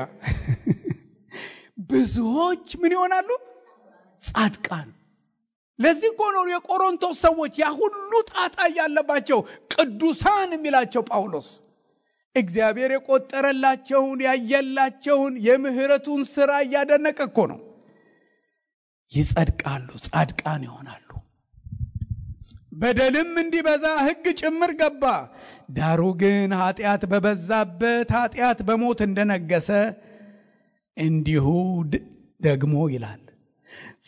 ብዙዎች ምን ይሆናሉ? ጻድቃን። ለዚህ እኮ ነው የቆሮንቶስ ሰዎች ያ ሁሉ ጣጣ ያለባቸው ቅዱሳን የሚላቸው ጳውሎስ። እግዚአብሔር የቆጠረላቸውን ያየላቸውን የምህረቱን ሥራ እያደነቀ እኮ ነው። ይጸድቃሉ፣ ጻድቃን ይሆናሉ። በደልም እንዲበዛ ሕግ ጭምር ገባ። ዳሩ ግን ኃጢአት በበዛበት ኃጢአት በሞት እንደነገሰ እንዲሁ ደግሞ ይላል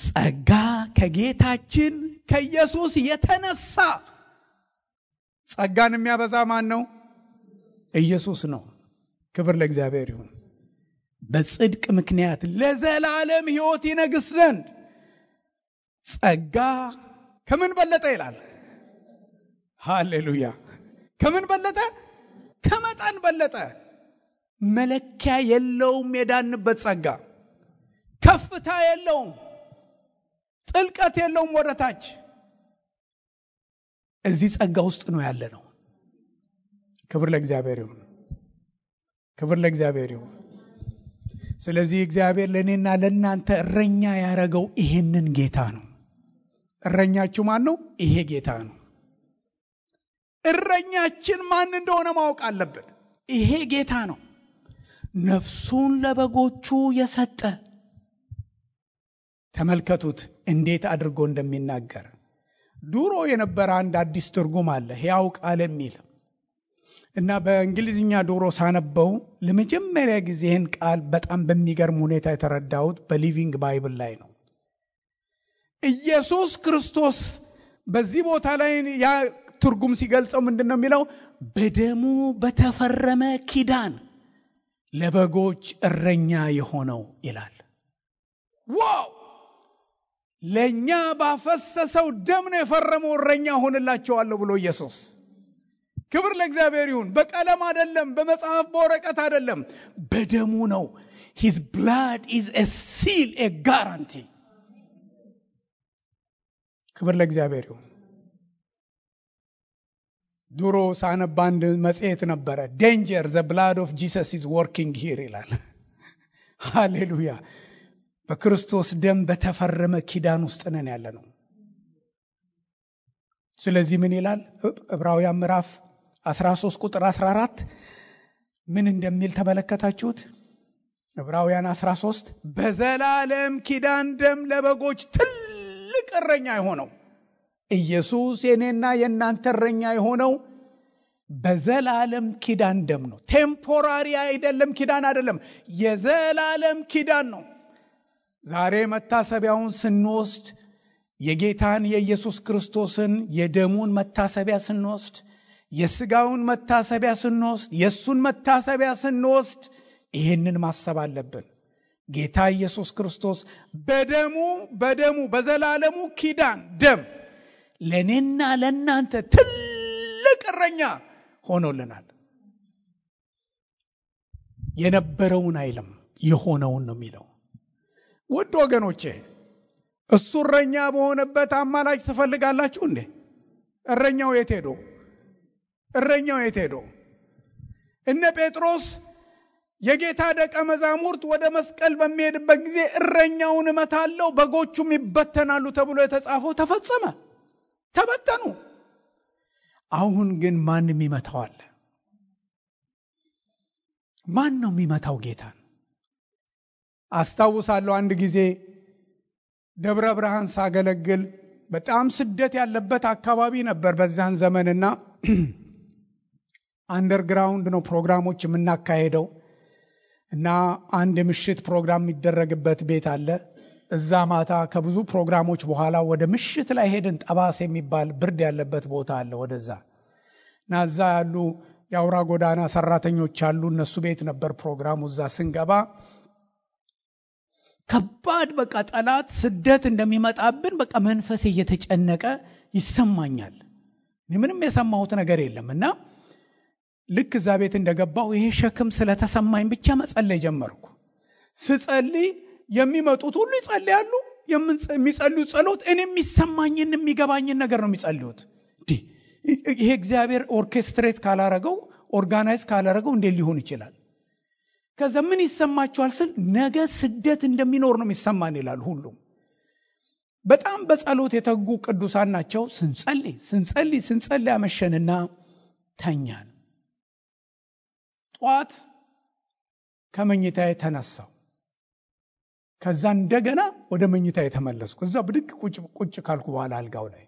ጸጋ ከጌታችን ከኢየሱስ የተነሳ። ጸጋን የሚያበዛ ማን ነው? ኢየሱስ ነው። ክብር ለእግዚአብሔር ይሁን። በጽድቅ ምክንያት ለዘላለም ሕይወት ይነግስ ዘንድ ጸጋ ከምን በለጠ ይላል? ሃሌሉያ! ከምን በለጠ? ከመጠን በለጠ። መለኪያ የለውም። የዳንበት ጸጋ ከፍታ የለውም፣ ጥልቀት የለውም። ወደታች እዚህ ጸጋ ውስጥ ነው ያለ ነው። ክብር ለእግዚአብሔር ይሁን። ክብር ለእግዚአብሔር ይሁን። ስለዚህ እግዚአብሔር ለእኔና ለእናንተ እረኛ ያደረገው ይሄንን ጌታ ነው። እረኛችሁ ማን ነው? ይሄ ጌታ ነው። እረኛችን ማን እንደሆነ ማወቅ አለብን። ይሄ ጌታ ነው። ነፍሱን ለበጎቹ የሰጠ። ተመልከቱት እንዴት አድርጎ እንደሚናገር። ድሮ የነበረ አንድ አዲስ ትርጉም አለ፣ ሕያው ቃል የሚል እና በእንግሊዝኛ ድሮ ሳነበው ለመጀመሪያ ጊዜ ይህን ቃል በጣም በሚገርም ሁኔታ የተረዳሁት በሊቪንግ ባይብል ላይ ነው። ኢየሱስ ክርስቶስ በዚህ ቦታ ላይ ያ ትርጉም ሲገልጸው ምንድን ነው የሚለው? በደሙ በተፈረመ ኪዳን ለበጎች እረኛ የሆነው ይላል። ዋው! ለኛ ባፈሰሰው ደም ነው የፈረመው እረኛ ሆንላቸዋለሁ ብሎ ኢየሱስ። ክብር ለእግዚአብሔር ይሁን። በቀለም አይደለም፣ በመጽሐፍ በወረቀት አይደለም፣ በደሙ ነው። his blood is a seal, a guarantee. ክብር ለእግዚአብሔር ይሁን። ድሮ ሳነብ አንድ መጽሔት ነበረ danger the blood of Jesus is working here ይላል። ሃሌሉያ። በክርስቶስ ደም በተፈረመ ኪዳን ውስጥ ነን ያለነው። ስለዚህ ምን ይላል ዕብራውያን ምዕራፍ 13 ቁጥር 14 ምን እንደሚል ተመለከታችሁት? ዕብራውያን 13 በዘላለም ኪዳን ደም ለበጎች ትልቅ እረኛ የሆነው ኢየሱስ የኔና የእናንተ እረኛ የሆነው በዘላለም ኪዳን ደም ነው። ቴምፖራሪ አይደለም፣ ኪዳን አይደለም፣ የዘላለም ኪዳን ነው። ዛሬ መታሰቢያውን ስንወስድ የጌታን የኢየሱስ ክርስቶስን የደሙን መታሰቢያ ስንወስድ፣ የሥጋውን መታሰቢያ ስንወስድ፣ የሱን መታሰቢያ ስንወስድ ይሄንን ማሰብ አለብን። ጌታ ኢየሱስ ክርስቶስ በደሙ በዘላለሙ ኪዳን ደም ለኔና ለናንተ ትልቅ እረኛ ሆኖልናል። የነበረውን አይልም የሆነውን ነው የሚለው። ውድ ወገኖቼ እሱ እረኛ በሆነበት አማላጅ ትፈልጋላችሁ እንዴ? እረኛው የት ሄዶ? እረኛው የት ሄዶ? እነ ጴጥሮስ የጌታ ደቀ መዛሙርት ወደ መስቀል በሚሄድበት ጊዜ እረኛውን እመታለሁ በጎቹም ይበተናሉ ተብሎ የተጻፈው ተፈጸመ፣ ተበተኑ። አሁን ግን ማን የሚመታው? ማን ነው የሚመታው ጌታን? አስታውሳለሁ አንድ ጊዜ ደብረ ብርሃን ሳገለግል በጣም ስደት ያለበት አካባቢ ነበር በዛን ዘመንና አንደርግራውንድ ነው ፕሮግራሞች የምናካሄደው እና አንድ ምሽት ፕሮግራም የሚደረግበት ቤት አለ። እዛ ማታ ከብዙ ፕሮግራሞች በኋላ ወደ ምሽት ላይ ሄድን። ጠባስ የሚባል ብርድ ያለበት ቦታ አለ ወደዛ እና እዛ ያሉ የአውራ ጎዳና ሰራተኞች አሉ። እነሱ ቤት ነበር ፕሮግራሙ። እዛ ስንገባ ከባድ በቃ ጠላት ስደት እንደሚመጣብን በቃ መንፈሴ እየተጨነቀ ይሰማኛል። ምንም የሰማሁት ነገር የለም እና ልክ እዛ ቤት እንደገባው ይሄ ሸክም ስለተሰማኝ ብቻ መጸለይ ጀመርኩ። ስጸልይ የሚመጡት ሁሉ ይጸልያሉ። የሚጸልዩት ጸሎት እኔ የሚሰማኝን የሚገባኝን ነገር ነው የሚጸልዩት። ይሄ እግዚአብሔር ኦርኬስትሬት ካላረገው ኦርጋናይዝ ካላረገው እንዴት ሊሆን ይችላል? ከዛ ምን ይሰማችኋል ስል ነገ ስደት እንደሚኖር ነው የሚሰማን ይላል ሁሉም። በጣም በጸሎት የተጉ ቅዱሳን ናቸው። ስንጸልይ አመሸንና ተኛን። ጧት ከመኝታዬ ተነሳው። ከዛ እንደገና ወደ መኝታዬ ተመለስኩ። እዛ ብድግ ቁጭ ካልኩ በኋላ አልጋው ላይ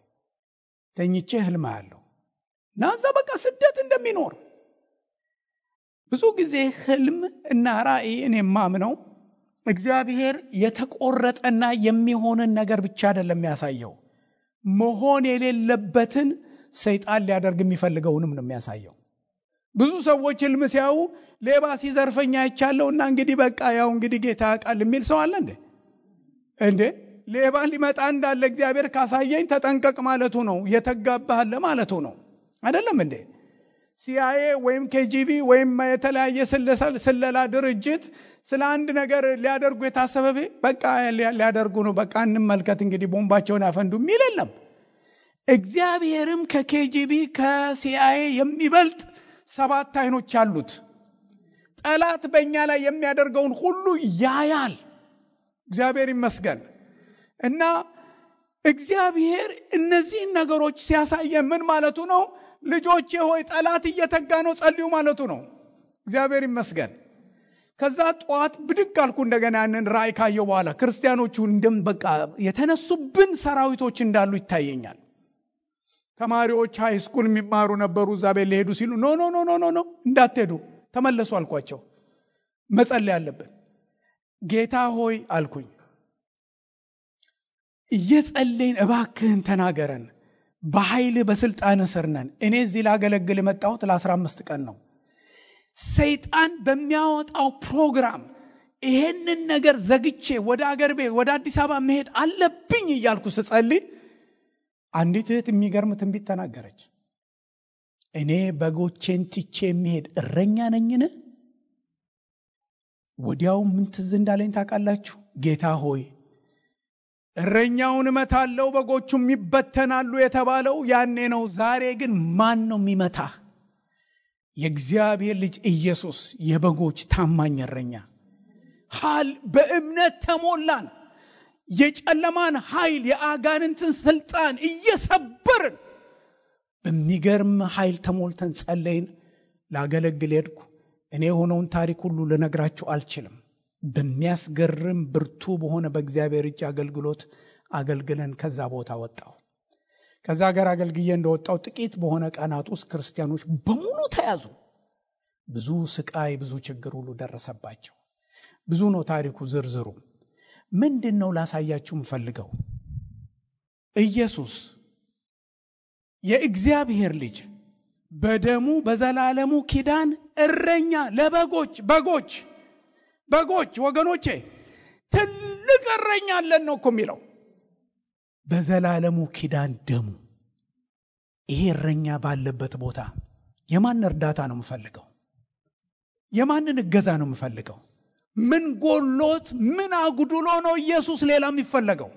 ተኝቼ ህልም አያለሁ እና እዛ በቃ ስደት እንደሚኖር። ብዙ ጊዜ ህልም እና ራእይ እኔ ማምነው እግዚአብሔር የተቆረጠና የሚሆንን ነገር ብቻ አይደለም የሚያሳየው፣ መሆን የሌለበትን ሰይጣን ሊያደርግ የሚፈልገውንም ነው የሚያሳየው። ብዙ ሰዎች ህልም ሲያዩ ሌባ ሲዘርፈኛ አይቻለውና እንግዲህ በቃ ያው እንግዲህ ጌታ ያውቃል የሚል ሰው አለ እንዴ? ሌባ ሊመጣ እንዳለ እግዚአብሔር ካሳየኝ ተጠንቀቅ ማለቱ ነው፣ የተጋባህለ ማለቱ ነው አይደለም እንዴ? ሲአይኤ ወይም ኬጂቢ ወይም የተለያየ ስለላ ድርጅት ስለ አንድ ነገር ሊያደርጉ የታሰበ በቃ ሊያደርጉ ነው፣ በቃ እንመልከት እንግዲህ ቦምባቸውን ያፈንዱ የሚል የለም። እግዚአብሔርም ከኬጂቢ ከሲአይኤ የሚበልጥ 7 አይኖች አሉት። ጠላት በእኛ ላይ የሚያደርገውን ሁሉ ያያል። እግዚአብሔር ይመስገን። እና እግዚአብሔር እነዚህን ነገሮች ሲያሳየን ምን ማለቱ ነው? ልጆቼ ሆይ ጠላት እየተጋ ነው ጸልዩ ማለቱ ነው። እግዚአብሔር ይመስገን። ከዛ ጧት ብድግ አልኩ እንደገና ያንን ራእይ ካየሁ በኋላ ክርስቲያኖቹ በቃ የተነሱብን ሰራዊቶች እንዳሉ ይታየኛል። ተማሪዎች ሃይ ስኩል የሚማሩ ነበሩ። እዛ ቤት ሊሄዱ ሲሉ ኖ እንዳትሄዱ ተመለሱ አልኳቸው። መጸለይ አለብን። ጌታ ሆይ አልኩኝ፣ እየጸለይን እባክህን ተናገረን፣ በኃይል በስልጣን ስር ነን። እኔ እዚህ ላገለግል የመጣሁት ለ15 ቀን ነው። ሰይጣን በሚያወጣው ፕሮግራም ይሄንን ነገር ዘግቼ ወደ አገር ቤት ወደ አዲስ አበባ መሄድ አለብኝ እያልኩ ስጸልይ አንዲት እህት የሚገርም ትንቢት ተናገረች። እኔ በጎቼን ትቼ የሚሄድ እረኛ ነኝን? ወዲያው ምን ትዝ እንዳለኝ ታውቃላችሁ? ጌታ ሆይ እረኛውን እመታለሁ በጎቹም ይበተናሉ የተባለው ያኔ ነው። ዛሬ ግን ማን ነው የሚመታህ? የእግዚአብሔር ልጅ ኢየሱስ የበጎች ታማኝ እረኛ። በእምነት ተሞላን። የጨለማን ኃይል የአጋንንትን ስልጣን እየሰበርን በሚገርም ኃይል ተሞልተን ጸለይን። ላገለግል ሄድኩ። እኔ የሆነውን ታሪክ ሁሉ ልነግራችሁ አልችልም። በሚያስገርም ብርቱ በሆነ በእግዚአብሔር እጅ አገልግሎት አገልግለን ከዛ ቦታ ወጣሁ። ከዛ ሀገር አገልግዬ እንደወጣሁ ጥቂት በሆነ ቀናት ውስጥ ክርስቲያኖች በሙሉ ተያዙ። ብዙ ስቃይ፣ ብዙ ችግር ሁሉ ደረሰባቸው። ብዙ ነው ታሪኩ ዝርዝሩ። ምንድነው ላሳያችሁ የምፈልገው? ኢየሱስ የእግዚአብሔር ልጅ በደሙ በዘላለሙ ኪዳን እረኛ ለበጎች ወገኖቼ ትልቅ እረኛ አለን ነው እኮ የሚለው። በዘላለሙ ኪዳን ደሙ። ይሄ እረኛ ባለበት ቦታ የማን እርዳታ ነው የምፈልገው? የማንን እገዛ ነው የምፈልገው? ምን ጎሎት ምን አጉድሎ ነው ኢየሱስ ሌላ የሚፈለገው?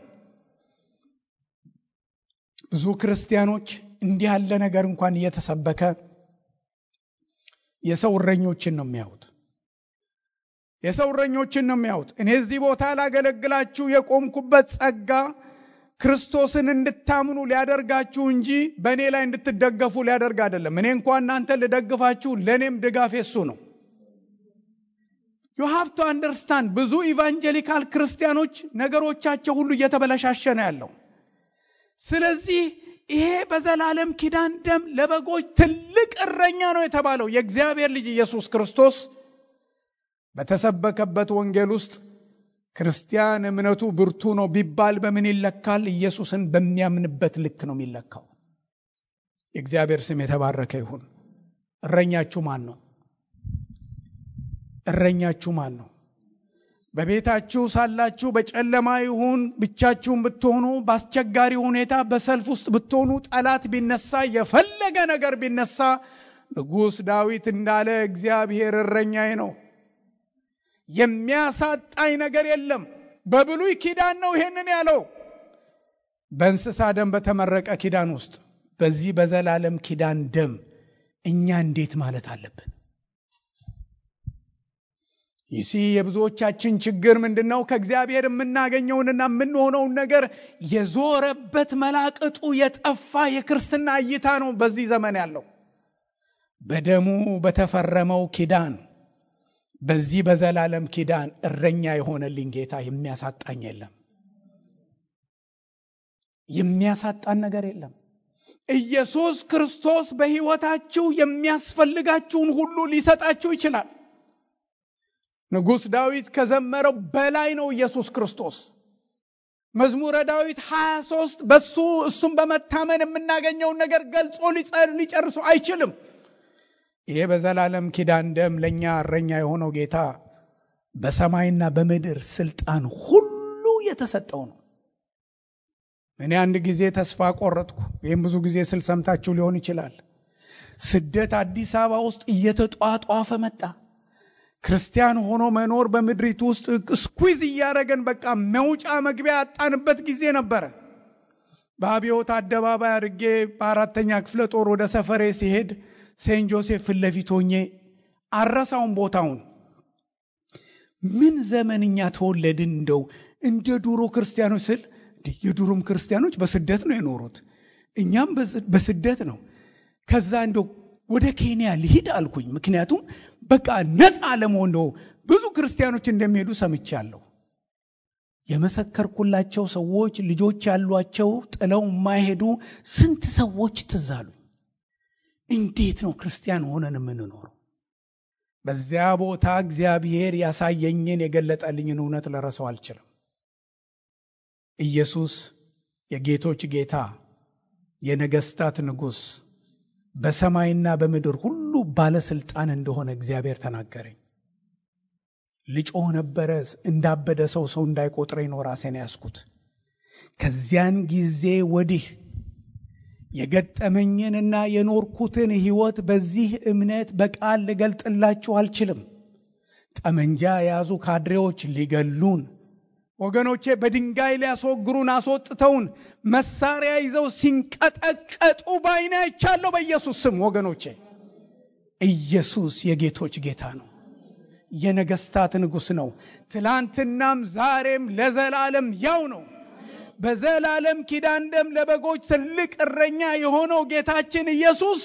ብዙ ክርስቲያኖች እንዲህ ያለ ነገር እንኳን እየተሰበከ የሰው እረኞችን ነው የሚያዩት። እኔ እዚህ ቦታ ላገለግላችሁ የቆምኩበት ጸጋ ክርስቶስን እንድታምኑ ሊያደርጋችሁ እንጂ በእኔ ላይ እንድትደገፉ ሊያደርግ አይደለም። እኔ እንኳን እናንተ ልደግፋችሁ፣ ለእኔም ድጋፍ የሱ ነው። you have to understand። ብዙ ኢቫንጀሊካል ክርስቲያኖች ነገሮቻቸው ሁሉ እየተበላሻሸ ነው ያለው። ስለዚህ ይሄ በዘላለም ኪዳን ደም ለበጎች ትልቅ እረኛ ነው የተባለው የእግዚአብሔር ልጅ ኢየሱስ ክርስቶስ በተሰበከበት ወንጌል ውስጥ ክርስቲያን እምነቱ ብርቱ ነው ቢባል በምን ይለካል? ኢየሱስን በሚያምንበት ልክ ነው የሚለካው። የእግዚአብሔር ስም የተባረከ ይሁን። እረኛችሁ ማን ነው? በቤታችሁ ሳላችሁ በጨለማ ይሁን ብቻችሁን ብትሆኑ፣ በአስቸጋሪ ሁኔታ በሰልፍ ውስጥ ብትሆኑ፣ ጠላት ቢነሳ፣ የፈለገ ነገር ቢነሳ፣ ንጉሥ ዳዊት እንዳለ እግዚአብሔር እረኛዬ ነው፣ የሚያሳጣኝ ነገር የለም። በብሉይ ኪዳን ነው ይሄንን ያለው። በእንስሳ ደም በተመረቀ ኪዳን ውስጥ በዚህ በዘላለም ኪዳን ደም እኛ እንዴት ማለት አለብን? ይሲ የብዙዎቻችን ችግር ምንድነው? ከእግዚአብሔር የምናገኘውንና የምንሆነውን ነገር የዞረበት መላቅጡ የጠፋ የክርስትና እይታ ነው በዚህ ዘመን ያለው። በደሙ በተፈረመው ኪዳን በዚህ በዘላለም ኪዳን እረኛ የሆነልኝ ጌታ የሚያሳጣኝ የለም። የሚያሳጣን ነገር የለም። ኢየሱስ ክርስቶስ በሕይወታችሁ የሚያስፈልጋችሁን ሁሉ ሊሰጣችሁ ይችላል። ንጉሥ ዳዊት ከዘመረው በላይ ነው ኢየሱስ ክርስቶስ። መዝሙረ ዳዊት 23 እሱም በመታመን የምናገኘውን ነገር ገልጾ ሊጨርሱ አይችልም። ይሄ በዘላለም ኪዳን ደም ለኛ እረኛ የሆነው ጌታ በሰማይና በምድር ስልጣን ሁሉ የተሰጠው ነው። እኔ አንድ ጊዜ ተስፋ ቆረጥኩ። ይሄን ብዙ ጊዜ ስልሰምታችሁ ሊሆን ይችላል። ስደት አዲስ አበባ ውስጥ እየተጧጧፈ መጣ። ክርስቲያን ሆኖ መኖር በምድሪቱ ውስጥ ስኩዊዝ እያደረገን በቃ መውጫ መግቢያ ያጣንበት ጊዜ ነበረ። በአብዮት አደባባይ አድርጌ በአራተኛ ክፍለ ጦር ወደ ሰፈሬ ሲሄድ ሴንት ጆሴፍ ፊት ለፊት ሆኜ አረሳውን ቦታውን። ምን ዘመንኛ ተወለድን እንደው እንደ ዱሮ ክርስቲያኖች ስል የዱሮም ክርስቲያኖች በስደት ነው የኖሩት፣ እኛም በስደት ነው። ከዛ እንደው ወደ ኬንያ ልሂድ አልኩኝ። ምክንያቱም በቃ ነፃ ለመሆን ነው። ብዙ ክርስቲያኖች እንደሚሄዱ ሰምቻለሁ። የመሰከርኩላቸው ሰዎች ልጆች ያሏቸው ጥለው የማይሄዱ ስንት ሰዎች ትዛሉ። እንዴት ነው ክርስቲያን ሆነን የምንኖረው? በዚያ ቦታ እግዚአብሔር ያሳየኝን የገለጠልኝን እውነት ለረሰው አልችልም። ኢየሱስ የጌቶች ጌታ የነገስታት ንጉሥ በሰማይና በምድር ሁሉ ባለስልጣን እንደሆነ እግዚአብሔር ተናገረኝ። ልጮህ ነበረ። እንዳበደ ሰው እንዳይቆጥረኝ ነው ራሴን ያስኩት። ከዚያን ጊዜ ወዲህ የገጠመኝንና የኖርኩትን ሕይወት በዚህ እምነት በቃል ልገልጥላችሁ አልችልም። ጠመንጃ የያዙ ካድሬዎች ሊገሉን፣ ወገኖቼ በድንጋይ ሊያስወግሩን አስወጥተውን መሳሪያ ይዘው ሲንቀጠቀጡ ባይኔ አይቻለሁ በኢየሱስ ስም። ወገኖቼ ኢየሱስ የጌቶች ጌታ ነው። የነገስታት ንጉሥ ነው። ትላንትናም ዛሬም ለዘላለም ያው ነው። በዘላለም ኪዳን ደም ለበጎች ትልቅ እረኛ የሆነው ጌታችን ኢየሱስ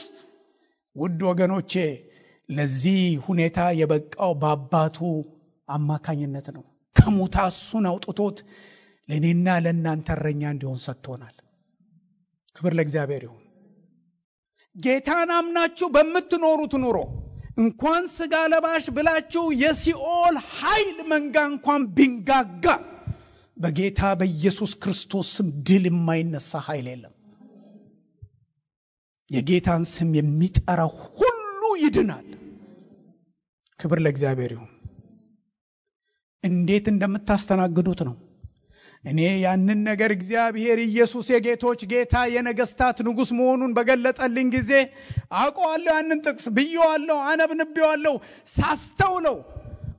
ውድ ወገኖቼ ለዚህ ሁኔታ የበቃው በአባቱ አማካኝነት ነው። ከሞት እሱን አውጥቶት ለኔና ለእናንተ እረኛ እንዲሆን ሰጥቶናል። ክብር ለእግዚአብሔር ይሁን። ጌታን አምናችሁ በምትኖሩት ኑሮ እንኳን ስጋ ለባሽ ብላችሁ የሲኦል ኃይል መንጋ እንኳን ቢንጋጋ በጌታ በኢየሱስ ክርስቶስ ስም ድል የማይነሳ ኃይል የለም። የጌታን ስም የሚጠራ ሁሉ ይድናል። ክብር ለእግዚአብሔር ይሁን። እንዴት እንደምታስተናግዱት ነው። እኔ ያንን ነገር እግዚአብሔር ኢየሱስ የጌቶች ጌታ የነገስታት ንጉሥ መሆኑን በገለጠልኝ ጊዜ አውቀዋለሁ። ያንን ጥቅስ ብየዋለሁ፣ አነብንቤዋለሁ። ሳስተውለው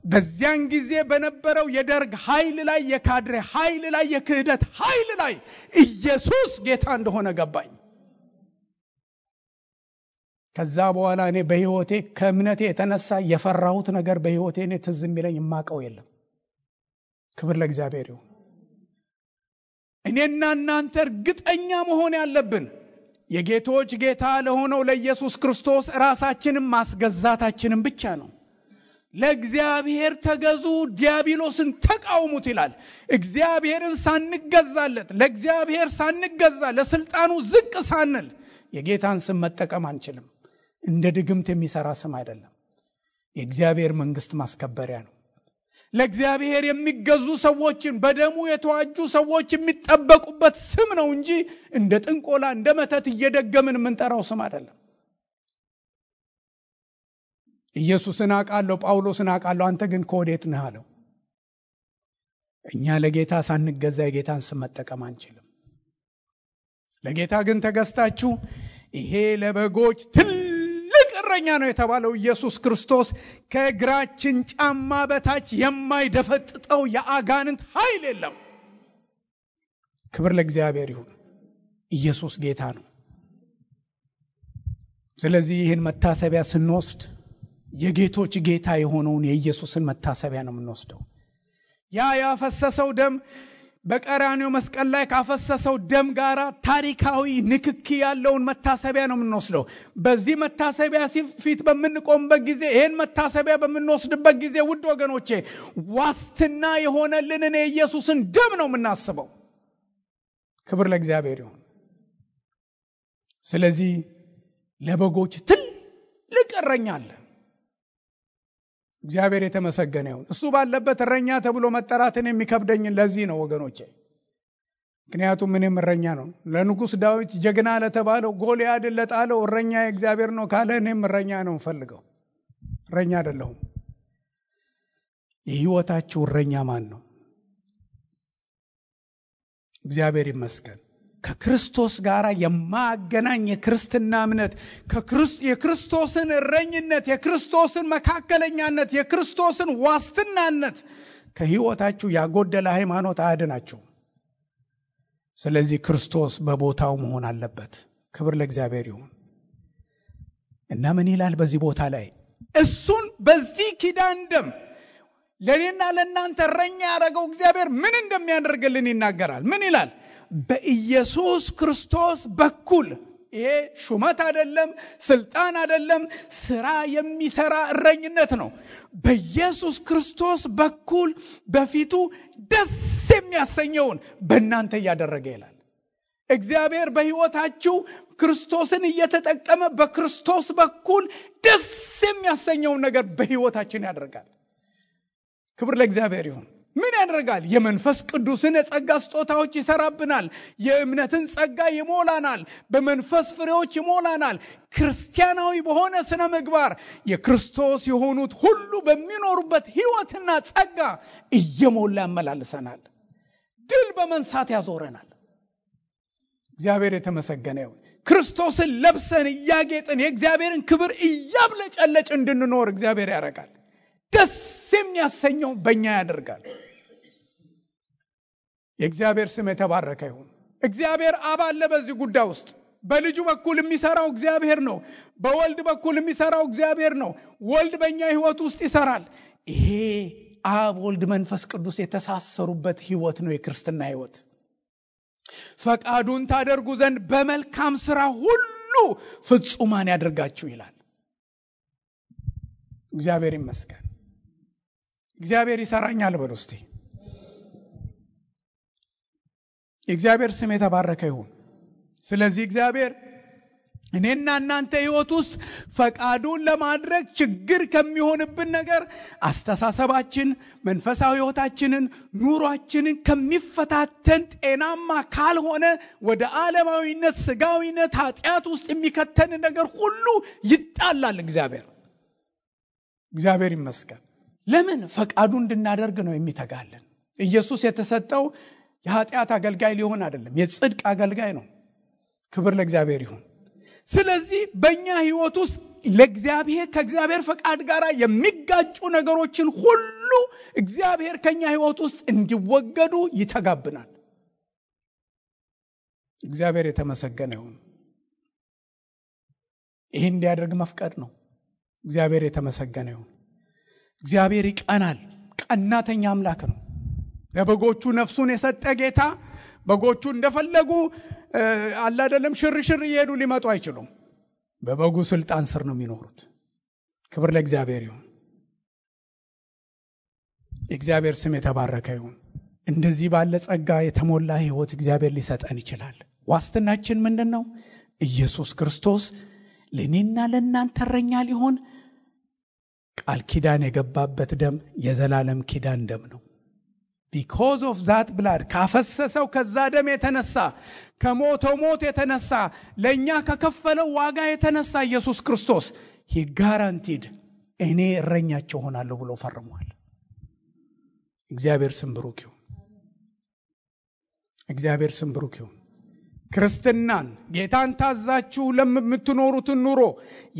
በዚያን ጊዜ በነበረው የደርግ ኃይል ላይ፣ የካድሬ ኃይል ላይ፣ የክህደት ኃይል ላይ ኢየሱስ ጌታ እንደሆነ ገባኝ። ከዛ በኋላ እኔ በህይወቴ ከእምነቴ የተነሳ የፈራሁት ነገር በህይወቴ እኔ ትዝ የሚለኝ የማውቀው የለም። ክብር ለእግዚአብሔር ይሁን። እኔና እናንተ እርግጠኛ መሆን ያለብን የጌቶች ጌታ ለሆነው ለኢየሱስ ክርስቶስ ራሳችንን ማስገዛታችንን ብቻ ነው። ለእግዚአብሔር ተገዙ፣ ዲያብሎስን ተቃውሙት ይላል። እግዚአብሔርን ሳንገዛለት፣ ለእግዚአብሔር ሳንገዛ፣ ለስልጣኑ ዝቅ ሳንል የጌታን ስም መጠቀም አንችልም። እንደ ድግምት የሚሰራ ስም አይደለም። የእግዚአብሔር መንግስት ማስከበሪያ ነው። ለእግዚአብሔር የሚገዙ ሰዎችን በደሙ የተዋጁ ሰዎች የሚጠበቁበት ስም ነው እንጂ እንደ ጥንቆላ እንደ መተት እየደገምን የምንጠራው ስም አይደለም። ኢየሱስን አውቃለሁ፣ ጳውሎስን አውቃለሁ፣ አንተ ግን ከወዴት ነህ አለው። እኛ ለጌታ ሳንገዛ የጌታን ስም መጠቀም አንችልም። ለጌታ ግን ተገዝታችሁ ይሄ ለበጎች ትልቅ እረኛ ነው የተባለው ኢየሱስ ክርስቶስ ከእግራችን ጫማ በታች የማይደፈጥጠው የአጋንንት ኃይል የለም። ክብር ለእግዚአብሔር ይሁን። ኢየሱስ ጌታ ነው። ስለዚህ ይህን መታሰቢያ ስንወስድ የጌቶች ጌታ የሆነውን የኢየሱስን መታሰቢያ ነው የምንወስደው። ያ ያፈሰሰው ደም በቀራንዮ መስቀል ላይ ካፈሰሰው ደም ጋር ታሪካዊ ንክኪ ያለውን መታሰቢያ ነው የምንወስደው። በዚህ መታሰቢያ ፊት በምንቆምበት ጊዜ፣ ይህን መታሰቢያ በምንወስድበት ጊዜ ውድ ወገኖቼ ዋስትና የሆነልንን የኢየሱስን ደም ነው የምናስበው። ክብር ለእግዚአብሔር ይሁን። ስለዚህ ለበጎች ትልቅ እረኛ አለ። እግዚአብሔር የተመሰገነ ይሁን። እሱ ባለበት እረኛ ተብሎ መጠራትን የሚከብደኝ ለዚህ ነው ወገኖቼ። ምክንያቱም ምንም እረኛ ነው። ለንጉሥ ዳዊት ጀግና ለተባለው ጎልያድን ለጣለው እረኛ እግዚአብሔር ነው ካለ እኔም እረኛ ነው ፈልገው። እረኛ አይደለሁም። የህይወታችሁ እረኛ ማን ነው? እግዚአብሔር ይመስገን። ከክርስቶስ ጋር የማገናኝ የክርስትና እምነት የክርስቶስን እረኝነት፣ የክርስቶስን መካከለኛነት፣ የክርስቶስን ዋስትናነት ከህይወታችሁ ያጎደለ ሃይማኖት አያድናችሁ። ስለዚህ ክርስቶስ በቦታው መሆን አለበት። ክብር ለእግዚአብሔር ይሁን። እና ምን ይላል በዚህ ቦታ ላይ? እሱን በዚህ ኪዳን ደም ለኔና ለእናንተ እረኛ ያደረገው እግዚአብሔር ምን እንደሚያደርግልን ይናገራል። ምን ይላል? በኢየሱስ ክርስቶስ በኩል። ይሄ ሹመት አይደለም፣ ስልጣን አይደለም፣ ስራ የሚሰራ እረኝነት ነው። በኢየሱስ ክርስቶስ በኩል በፊቱ ደስ የሚያሰኘውን በእናንተ እያደረገ ይላል። እግዚአብሔር በህይወታችሁ ክርስቶስን እየተጠቀመ በክርስቶስ በኩል ደስ የሚያሰኘውን ነገር በህይወታችን ያደርጋል። ክብር ለእግዚአብሔር ይሁን። ምን ያደርጋል? የመንፈስ ቅዱስን የጸጋ ስጦታዎች ይሰራብናል። የእምነትን ጸጋ ይሞላናል። በመንፈስ ፍሬዎች ይሞላናል። ክርስቲያናዊ በሆነ ስነ ምግባር የክርስቶስ የሆኑት ሁሉ በሚኖሩበት ህይወትና ጸጋ እየሞላ ያመላልሰናል። ድል በመንሳት ያዞረናል። እግዚአብሔር የተመሰገነ ይሁን። ክርስቶስን ለብሰን እያጌጥን የእግዚአብሔርን ክብር እያብለጨለጭ እንድንኖር እግዚአብሔር ያደርጋል። ደስ የሚያሰኘው በእኛ ያደርጋል። የእግዚአብሔር ስም የተባረከ ይሁን። እግዚአብሔር አብ አለ በዚህ ጉዳይ ውስጥ። በልጁ በኩል የሚሰራው እግዚአብሔር ነው። በወልድ በኩል የሚሰራው እግዚአብሔር ነው። ወልድ በእኛ ህይወት ውስጥ ይሰራል። ይሄ አብ ወልድ መንፈስ ቅዱስ የተሳሰሩበት ህይወት ነው የክርስትና ህይወት። ፈቃዱን ታደርጉ ዘንድ በመልካም ስራ ሁሉ ፍጹማን ያደርጋችሁ ይላል። እግዚአብሔር ይመስገን። እግዚአብሔር ይሰራኛል በሉ እስቲ። የእግዚአብሔር ስም የተባረከ ይሁን። ስለዚህ እግዚአብሔር እኔና እናንተ ህይወት ውስጥ ፈቃዱን ለማድረግ ችግር ከሚሆንብን ነገር አስተሳሰባችን፣ መንፈሳዊ ህይወታችንን፣ ኑሯችንን ከሚፈታተን ጤናማ ካልሆነ ወደ ዓለማዊነት፣ ስጋዊነት፣ ኃጢአት ውስጥ የሚከተን ነገር ሁሉ ይጣላል። እግዚአብሔር ይመስገን። ለምን? ፈቃዱ እንድናደርግ ነው የሚተጋልን። ኢየሱስ የተሰጠው የኃጢአት አገልጋይ ሊሆን አይደለም፣ የጽድቅ አገልጋይ ነው። ክብር ለእግዚአብሔር ይሁን። ስለዚህ በእኛ ህይወት ውስጥ ለእግዚአብሔር ከእግዚአብሔር ፈቃድ ጋር የሚጋጩ ነገሮችን ሁሉ እግዚአብሔር ከኛ ህይወት ውስጥ እንዲወገዱ ይተጋብናል። እግዚአብሔር የተመሰገነ ይሁን። ይህን እንዲያደርግ መፍቀድ ነው። እግዚአብሔር የተመሰገነ ይሁን። እግዚአብሔር ይቀናል። ቀናተኛ አምላክ ነው። ለበጎቹ ነፍሱን የሰጠ ጌታ በጎቹ እንደፈለጉ አላደለም ሽርሽር እየሄዱ ሊመጡ አይችሉም። በበጉ ስልጣን ስር ነው የሚኖሩት። ክብር ለእግዚአብሔር ይሁን። የእግዚአብሔር ስም የተባረከ ይሁን። እንደዚህ ባለ ጸጋ የተሞላ ህይወት እግዚአብሔር ሊሰጠን ይችላል። ዋስትናችን ምንድነው? ኢየሱስ ክርስቶስ ለኔና ለእናንተ እረኛ ሊሆን ቃል ኪዳን የገባበት ደም የዘላለም ኪዳን ደም ነው። because of that blood ካፈሰሰው ከዛ ደም የተነሳ ከሞተው ሞት የተነሳ ለኛ ከከፈለው ዋጋ የተነሳ ኢየሱስ ክርስቶስ he guaranteed እኔ እረኛቸው ሆናለሁ ብሎ ፈርሟል። እግዚአብሔር ስም ብሩክ ይሁን። እግዚአብሔር ስም ብሩክ ይሁን። ክርስትናን ጌታን ታዛችሁ ለምትኖሩት ኑሮ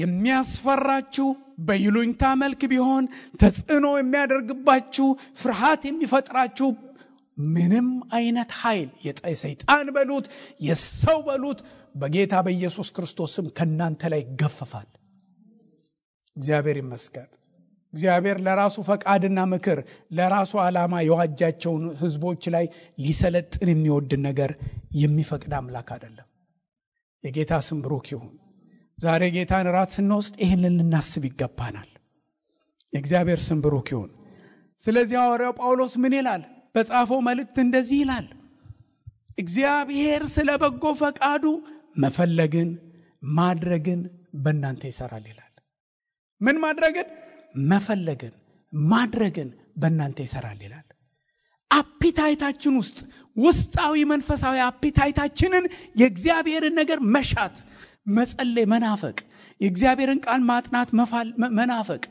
የሚያስፈራችሁ በይሉኝታ መልክ ቢሆን ተጽዕኖ የሚያደርግባችሁ ፍርሃት የሚፈጥራችሁ ምንም አይነት ኃይል የሰይጣን በሉት የሰው በሉት በጌታ በኢየሱስ ክርስቶስ ስም ከናንተ ላይ ይገፈፋል። እግዚአብሔር ይመስገን። እግዚአብሔር ለራሱ ፈቃድና ምክር ለራሱ ዓላማ የዋጃቸውን ህዝቦች ላይ ሊሰለጥን የሚወድ ነገር የሚፈቅድ አምላክ አይደለም። የጌታ ስም ብሩክ ይሁን። ዛሬ ጌታን ራት ስንወስድ ይሄንን ልናስብ ይገባናል። የእግዚአብሔር ስም ብሩክ ይሁን። ስለዚህ ሐዋርያው ጳውሎስ ምን ይላል? በጻፈው መልእክት እንደዚህ ይላል፣ እግዚአብሔር ስለ በጎ ፈቃዱ መፈለግን ማድረግን በእናንተ ይሰራል ይላል። ምን ማድረግን? መፈለግን ማድረግን በእናንተ ይሰራል ይላል። አፒታይታችን ውስጥ ውስጣዊ መንፈሳዊ አፒታይታችንን የእግዚአብሔርን ነገር መሻት፣ መጸለይ፣ መናፈቅ፣ የእግዚአብሔርን ቃል ማጥናት መናፈቅ፣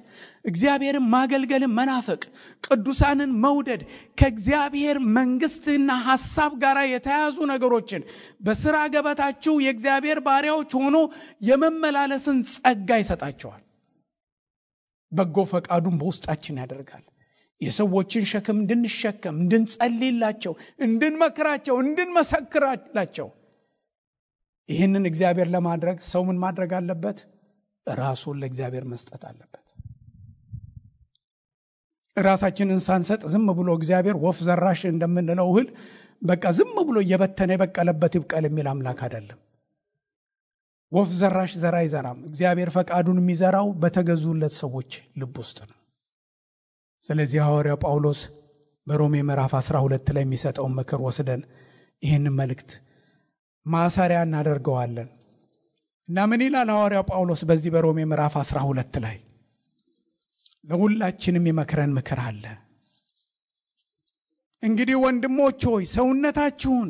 እግዚአብሔርን ማገልገልን መናፈቅ፣ ቅዱሳንን መውደድ፣ ከእግዚአብሔር መንግስትና ሐሳብ ጋር የተያዙ ነገሮችን በሥራ ገበታችሁ የእግዚአብሔር ባሪያዎች ሆኖ የመመላለስን ጸጋ ይሰጣቸዋል። በጎ ፈቃዱን በውስጣችን ያደርጋል። የሰዎችን ሸክም እንድንሸከም፣ እንድንጸልይላቸው፣ እንድንመክራቸው፣ እንድንመሰክራላቸው። ይህንን እግዚአብሔር ለማድረግ ሰው ምን ማድረግ አለበት? ራሱን ለእግዚአብሔር መስጠት አለበት። ራሳችንን ሳንሰጥ ዝም ብሎ እግዚአብሔር ወፍ ዘራሽ እንደምንለው እህል በቃ ዝም ብሎ እየበተነ የበቀለበት ይብቀል የሚል አምላክ አይደለም። ወፍ ዘራሽ ዘራ አይዘራም። እግዚአብሔር ፈቃዱን የሚዘራው በተገዙለት ሰዎች ልብ ውስጥ ነው። ስለዚህ ሐዋርያው ጳውሎስ በሮሜ ምዕራፍ 12 ላይ የሚሰጠውን ምክር ወስደን ይህንን መልእክት ማሰሪያ እናደርገዋለን እና ምን ይላል ሐዋርያው ጳውሎስ በዚህ በሮሜ ምዕራፍ 12 ላይ? ለሁላችንም የመከረን ምክር አለ። እንግዲህ ወንድሞች ሆይ ሰውነታችሁን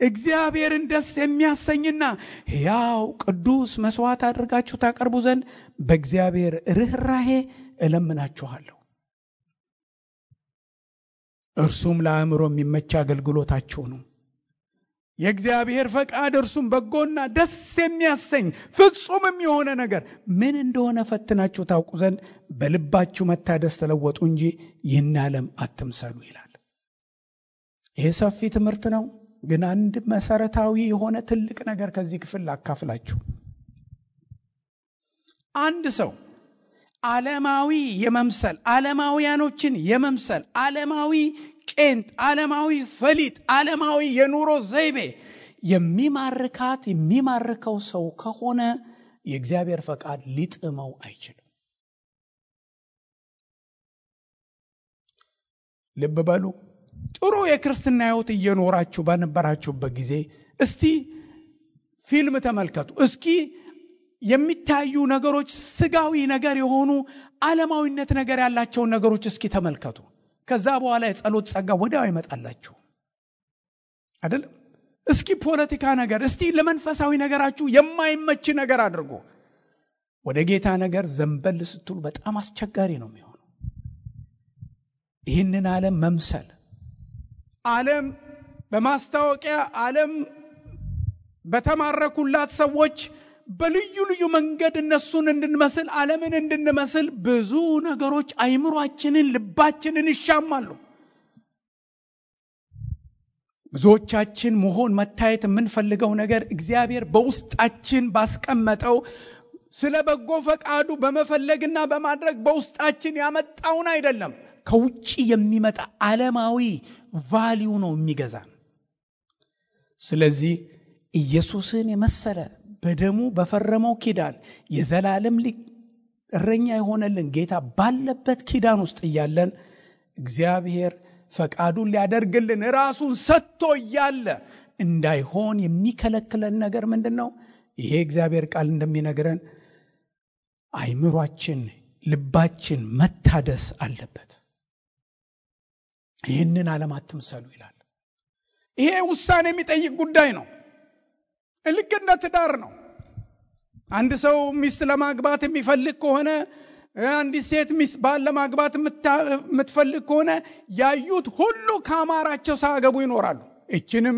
እግዚአብሔርን ደስ የሚያሰኝና ሕያው ቅዱስ መስዋዕት አድርጋችሁ ታቀርቡ ዘንድ በእግዚአብሔር ርኅራኄ እለምናችኋለሁ። እርሱም ለአእምሮ የሚመች አገልግሎታችሁ ነው። የእግዚአብሔር ፈቃድ እርሱም በጎና ደስ የሚያሰኝ ፍጹምም የሆነ ነገር ምን እንደሆነ ፈትናችሁ ታውቁ ዘንድ በልባችሁ መታደስ ተለወጡ እንጂ ይህን ዓለም አትምሰሉ ይላል። ይሄ ሰፊ ትምህርት ነው፣ ግን አንድ መሰረታዊ የሆነ ትልቅ ነገር ከዚህ ክፍል አካፍላችሁ። አንድ ሰው ዓለማዊ የመምሰል ዓለማውያኖችን የመምሰል ዓለማዊ ቄንጥ፣ ዓለማዊ ፈሊጥ፣ ዓለማዊ የኑሮ ዘይቤ የሚማርከው ሰው ከሆነ የእግዚአብሔር ፈቃድ ሊጥመው አይችልም። ልብ በሉ። ጥሩ የክርስትና ሕይወት እየኖራችሁ በነበራችሁበት ጊዜ እስቲ ፊልም ተመልከቱ። እስኪ የሚታዩ ነገሮች ስጋዊ ነገር የሆኑ ዓለማዊነት ነገር ያላቸውን ነገሮች እስኪ ተመልከቱ። ከዛ በኋላ የጸሎት ጸጋ ወዲያው ይመጣላችሁ አይደለም? እስኪ ፖለቲካ ነገር፣ እስቲ ለመንፈሳዊ ነገራችሁ የማይመች ነገር አድርጎ ወደ ጌታ ነገር ዘንበል ስትሉ በጣም አስቸጋሪ ነው የሚሆነው። ይህንን ዓለም መምሰል፣ ዓለም በማስታወቂያ ዓለም በተማረኩላት ሰዎች በልዩ ልዩ መንገድ እነሱን እንድንመስል ዓለምን እንድንመስል ብዙ ነገሮች አይምሯችንን ልባችንን ይሻማሉ። ብዙዎቻችን መሆን መታየት የምንፈልገው ነገር እግዚአብሔር በውስጣችን ባስቀመጠው ስለ በጎ ፈቃዱ በመፈለግና በማድረግ በውስጣችን ያመጣውን አይደለም፣ ከውጪ የሚመጣ ዓለማዊ ቫልዩ ነው የሚገዛን። ስለዚህ ኢየሱስን የመሰለ በደሙ በፈረመው ኪዳን የዘላለም እረኛ የሆነልን ጌታ ባለበት ኪዳን ውስጥ እያለን እግዚአብሔር ፈቃዱን ሊያደርግልን ራሱን ሰጥቶ እያለ እንዳይሆን የሚከለክለን ነገር ምንድነው? ይሄ እግዚአብሔር ቃል እንደሚነግረን አይምሯችን ልባችን መታደስ አለበት። ይህንን ዓለም አትምሰሉ ይላል። ይሄ ውሳኔ የሚጠይቅ ጉዳይ ነው። ልክ እንደ ትዳር ነው። አንድ ሰው ሚስት ለማግባት የሚፈልግ ከሆነ፣ አንዲት ሴት ሚስት ባል ለማግባት የምትፈልግ ከሆነ ያዩት ሁሉ ካማራቸው ሳያገቡ ይኖራሉ። እችንም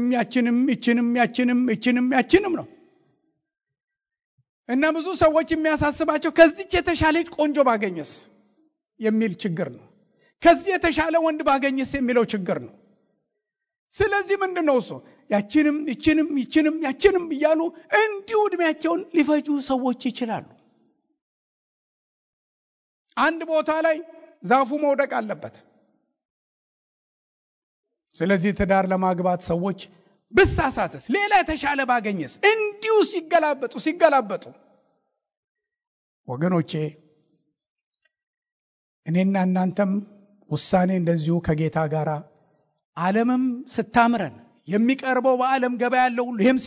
ያችንም ነው። እና ብዙ ሰዎች የሚያሳስባቸው ከዚች የተሻለች ቆንጆ ባገኘስ የሚል ችግር ነው። ከዚህ የተሻለ ወንድ ባገኘስ የሚለው ችግር ነው። ስለዚህ ምንድነው እሱ? ያችንም እያሉ እንዲሁ ዕድሜያቸውን ሊፈጁ ሰዎች ይችላሉ። አንድ ቦታ ላይ ዛፉ መውደቅ አለበት። ስለዚህ ትዳር ለማግባት ሰዎች ብሳሳትስ፣ ሌላ የተሻለ ባገኘስ፣ እንዲሁ ሲገላበጡ ወገኖቼ፣ እኔና እናንተም ውሳኔ እንደዚሁ ከጌታ ጋር ዓለምም ስታምረን የሚቀርበው በዓለም ገበያ ያለው ሁሉ ይሄም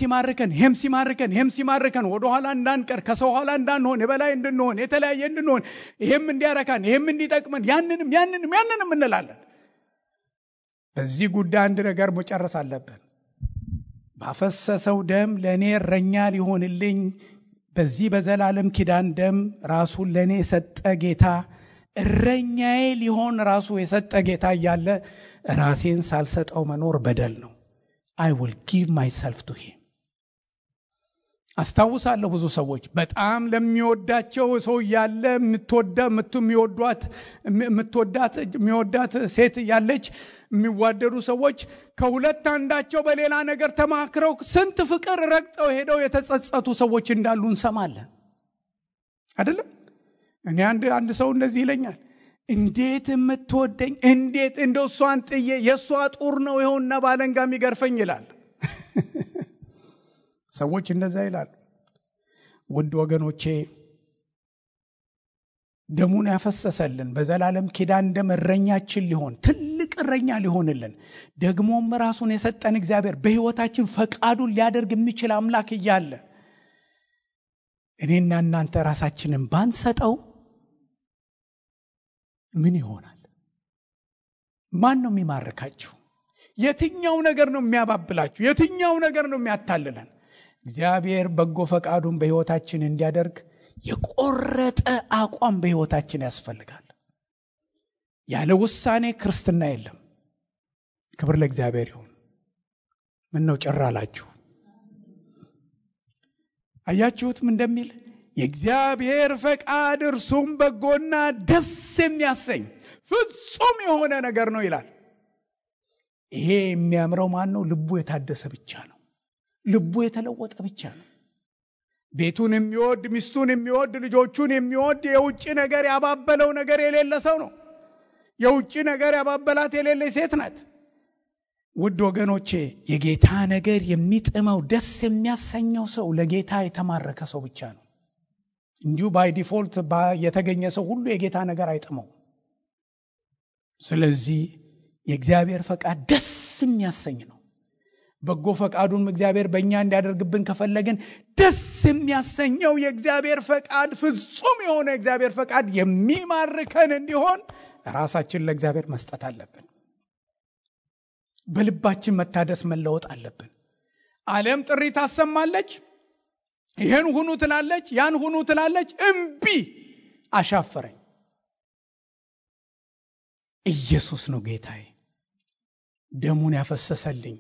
ሲማርከን ወደኋላ እንዳንቀር፣ ከሰው ኋላ እንዳንሆን፣ የበላይ እንድንሆን፣ የተለያየ እንድንሆን፣ ይሄም እንዲያረካን፣ ይሄም እንዲጠቅመን ያንንም እንላለን። በዚህ ጉዳይ አንድ ነገር መጨረስ አለብን። ባፈሰሰው ደም ለእኔ እረኛ ሊሆንልኝ በዚህ በዘላለም ኪዳን ደም ራሱን ለእኔ የሰጠ ጌታ፣ እረኛዬ ሊሆን ራሱ የሰጠ ጌታ እያለ ራሴን ሳልሰጠው መኖር በደል ነው። I will give myself to him። አስታውሳለሁ ብዙ ሰዎች በጣም ለሚወዳቸው ሰው ያለ የሚወዳት ሴት ያለች የሚዋደዱ ሰዎች ከሁለት አንዳቸው በሌላ ነገር ተማክረው ስንት ፍቅር ረግጠው ሄደው የተጸጸቱ ሰዎች እንዳሉ እንሰማለን አይደለም? እኔ አንድ ሰው እንደዚህ ይለኛል፣ እንዴት የምትወደኝ፣ እንዴት እንደው እሷን ጥዬ የእሷ ጡር ነው ይኸውና ባለንጋ የሚገርፈኝ ይላል። ሰዎች እንደዛ ይላሉ። ውድ ወገኖቼ፣ ደሙን ያፈሰሰልን በዘላለም ኪዳን ደም እረኛችን ሊሆን ትልቅ እረኛ ሊሆንልን ደግሞም ራሱን የሰጠን እግዚአብሔር በሕይወታችን ፈቃዱን ሊያደርግ የሚችል አምላክ እያለ እኔና እናንተ ራሳችንን ባንሰጠው ምን ይሆናል? ማን ነው የሚማርካችሁ? የትኛው ነገር ነው የሚያባብላችሁ? የትኛው ነገር ነው የሚያታልለን? እግዚአብሔር በጎ ፈቃዱን በሕይወታችን እንዲያደርግ የቆረጠ አቋም በሕይወታችን ያስፈልጋል። ያለ ውሳኔ ክርስትና የለም። ክብር ለእግዚአብሔር ይሁን። ምን ነው ጭር አላችሁ? አያችሁትም እንደሚል የእግዚአብሔር ፈቃድ እርሱም በጎና ደስ የሚያሰኝ ፍጹም የሆነ ነገር ነው ይላል። ይሄ የሚያምረው ማን ነው? ልቡ የታደሰ ብቻ ነው። ልቡ የተለወጠ ብቻ ነው። ቤቱን የሚወድ፣ ሚስቱን የሚወድ፣ ልጆቹን የሚወድ፣ የውጭ ነገር ያባበለው ነገር የሌለ ሰው ነው። የውጭ ነገር ያባበላት የሌለ ሴት ናት። ውድ ወገኖቼ የጌታ ነገር የሚጥመው ደስ የሚያሰኘው ሰው ለጌታ የተማረከ ሰው ብቻ ነው። እንዲሁ ባይ ዲፎልት የተገኘ ሰው ሁሉ የጌታ ነገር አይጥመው። ስለዚህ የእግዚአብሔር ፈቃድ ደስ የሚያሰኝ ነው። በጎ ፈቃዱን እግዚአብሔር በእኛ እንዲያደርግብን ከፈለግን ደስ የሚያሰኘው የእግዚአብሔር ፈቃድ ፍጹም የሆነ የእግዚአብሔር ፈቃድ የሚማርከን እንዲሆን ራሳችን ለእግዚአብሔር መስጠት አለብን። በልባችን መታደስ መለወጥ አለብን። ዓለም ጥሪ ታሰማለች። ይሄን ሁኑ ትላለች፣ ያን ሁኑ ትላለች። እምቢ፣ አሻፈረኝ። ኢየሱስ ነው ጌታዬ፣ ደሙን ያፈሰሰልኝ፣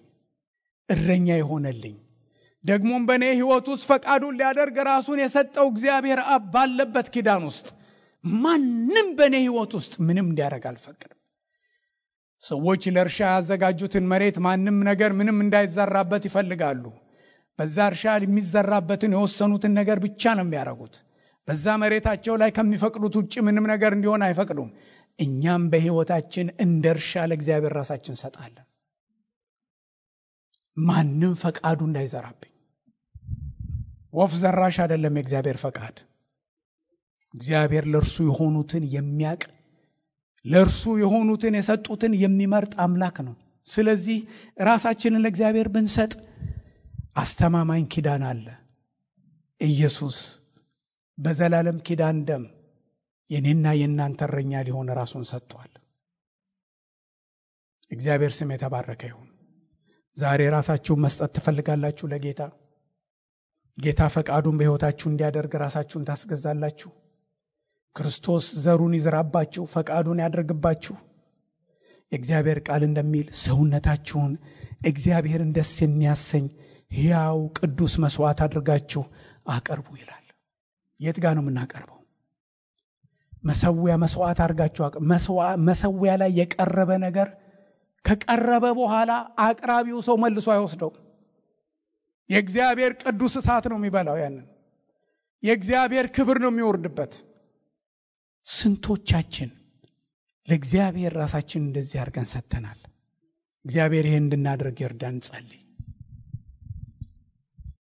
እረኛ የሆነልኝ፣ ደግሞም በእኔ ሕይወት ውስጥ ፈቃዱን ሊያደርግ ራሱን የሰጠው እግዚአብሔር አብ ባለበት ኪዳን ውስጥ ማንም በእኔ ሕይወት ውስጥ ምንም እንዲያደርግ አልፈቅድም። ሰዎች ለእርሻ ያዘጋጁትን መሬት ማንም ነገር ምንም እንዳይዘራበት ይፈልጋሉ። በዛ እርሻ የሚዘራበትን የወሰኑትን ነገር ብቻ ነው የሚያደርጉት። በዛ መሬታቸው ላይ ከሚፈቅዱት ውጭ ምንም ነገር እንዲሆን አይፈቅዱም። እኛም በሕይወታችን እንደ እርሻ ለእግዚአብሔር ራሳችን እንሰጣለን። ማንም ፈቃዱ እንዳይዘራብኝ። ወፍ ዘራሽ አይደለም የእግዚአብሔር ፈቃድ። እግዚአብሔር ለእርሱ የሆኑትን የሚያቅ፣ ለእርሱ የሆኑትን የሰጡትን የሚመርጥ አምላክ ነው። ስለዚህ ራሳችንን ለእግዚአብሔር ብንሰጥ አስተማማኝ ኪዳን አለ። ኢየሱስ በዘላለም ኪዳን ደም የኔና የእናንተ እረኛ ሊሆን ራሱን ሰጥቷል። እግዚአብሔር ስም የተባረከ ይሁን። ዛሬ ራሳችሁን መስጠት ትፈልጋላችሁ ለጌታ? ጌታ ፈቃዱን በሕይወታችሁ እንዲያደርግ ራሳችሁን ታስገዛላችሁ? ክርስቶስ ዘሩን ይዝራባችሁ፣ ፈቃዱን ያደርግባችሁ? የእግዚአብሔር ቃል እንደሚል ሰውነታችሁን እግዚአብሔርን ደስ የሚያሰኝ ሕያው ቅዱስ መስዋዕት አድርጋችሁ አቅርቡ ይላል። የት ጋር ነው የምናቀርበው? መሰዊያ መስዋዕት አድርጋችሁ መሰዊያ ላይ የቀረበ ነገር ከቀረበ በኋላ አቅራቢው ሰው መልሶ አይወስደው። የእግዚአብሔር ቅዱስ እሳት ነው የሚበላው። ያንን የእግዚአብሔር ክብር ነው የሚወርድበት። ስንቶቻችን ለእግዚአብሔር ራሳችን እንደዚህ አድርገን ሰጥተናል? እግዚአብሔር ይሄን እንድናደርግ ይርዳን። ጸልይ።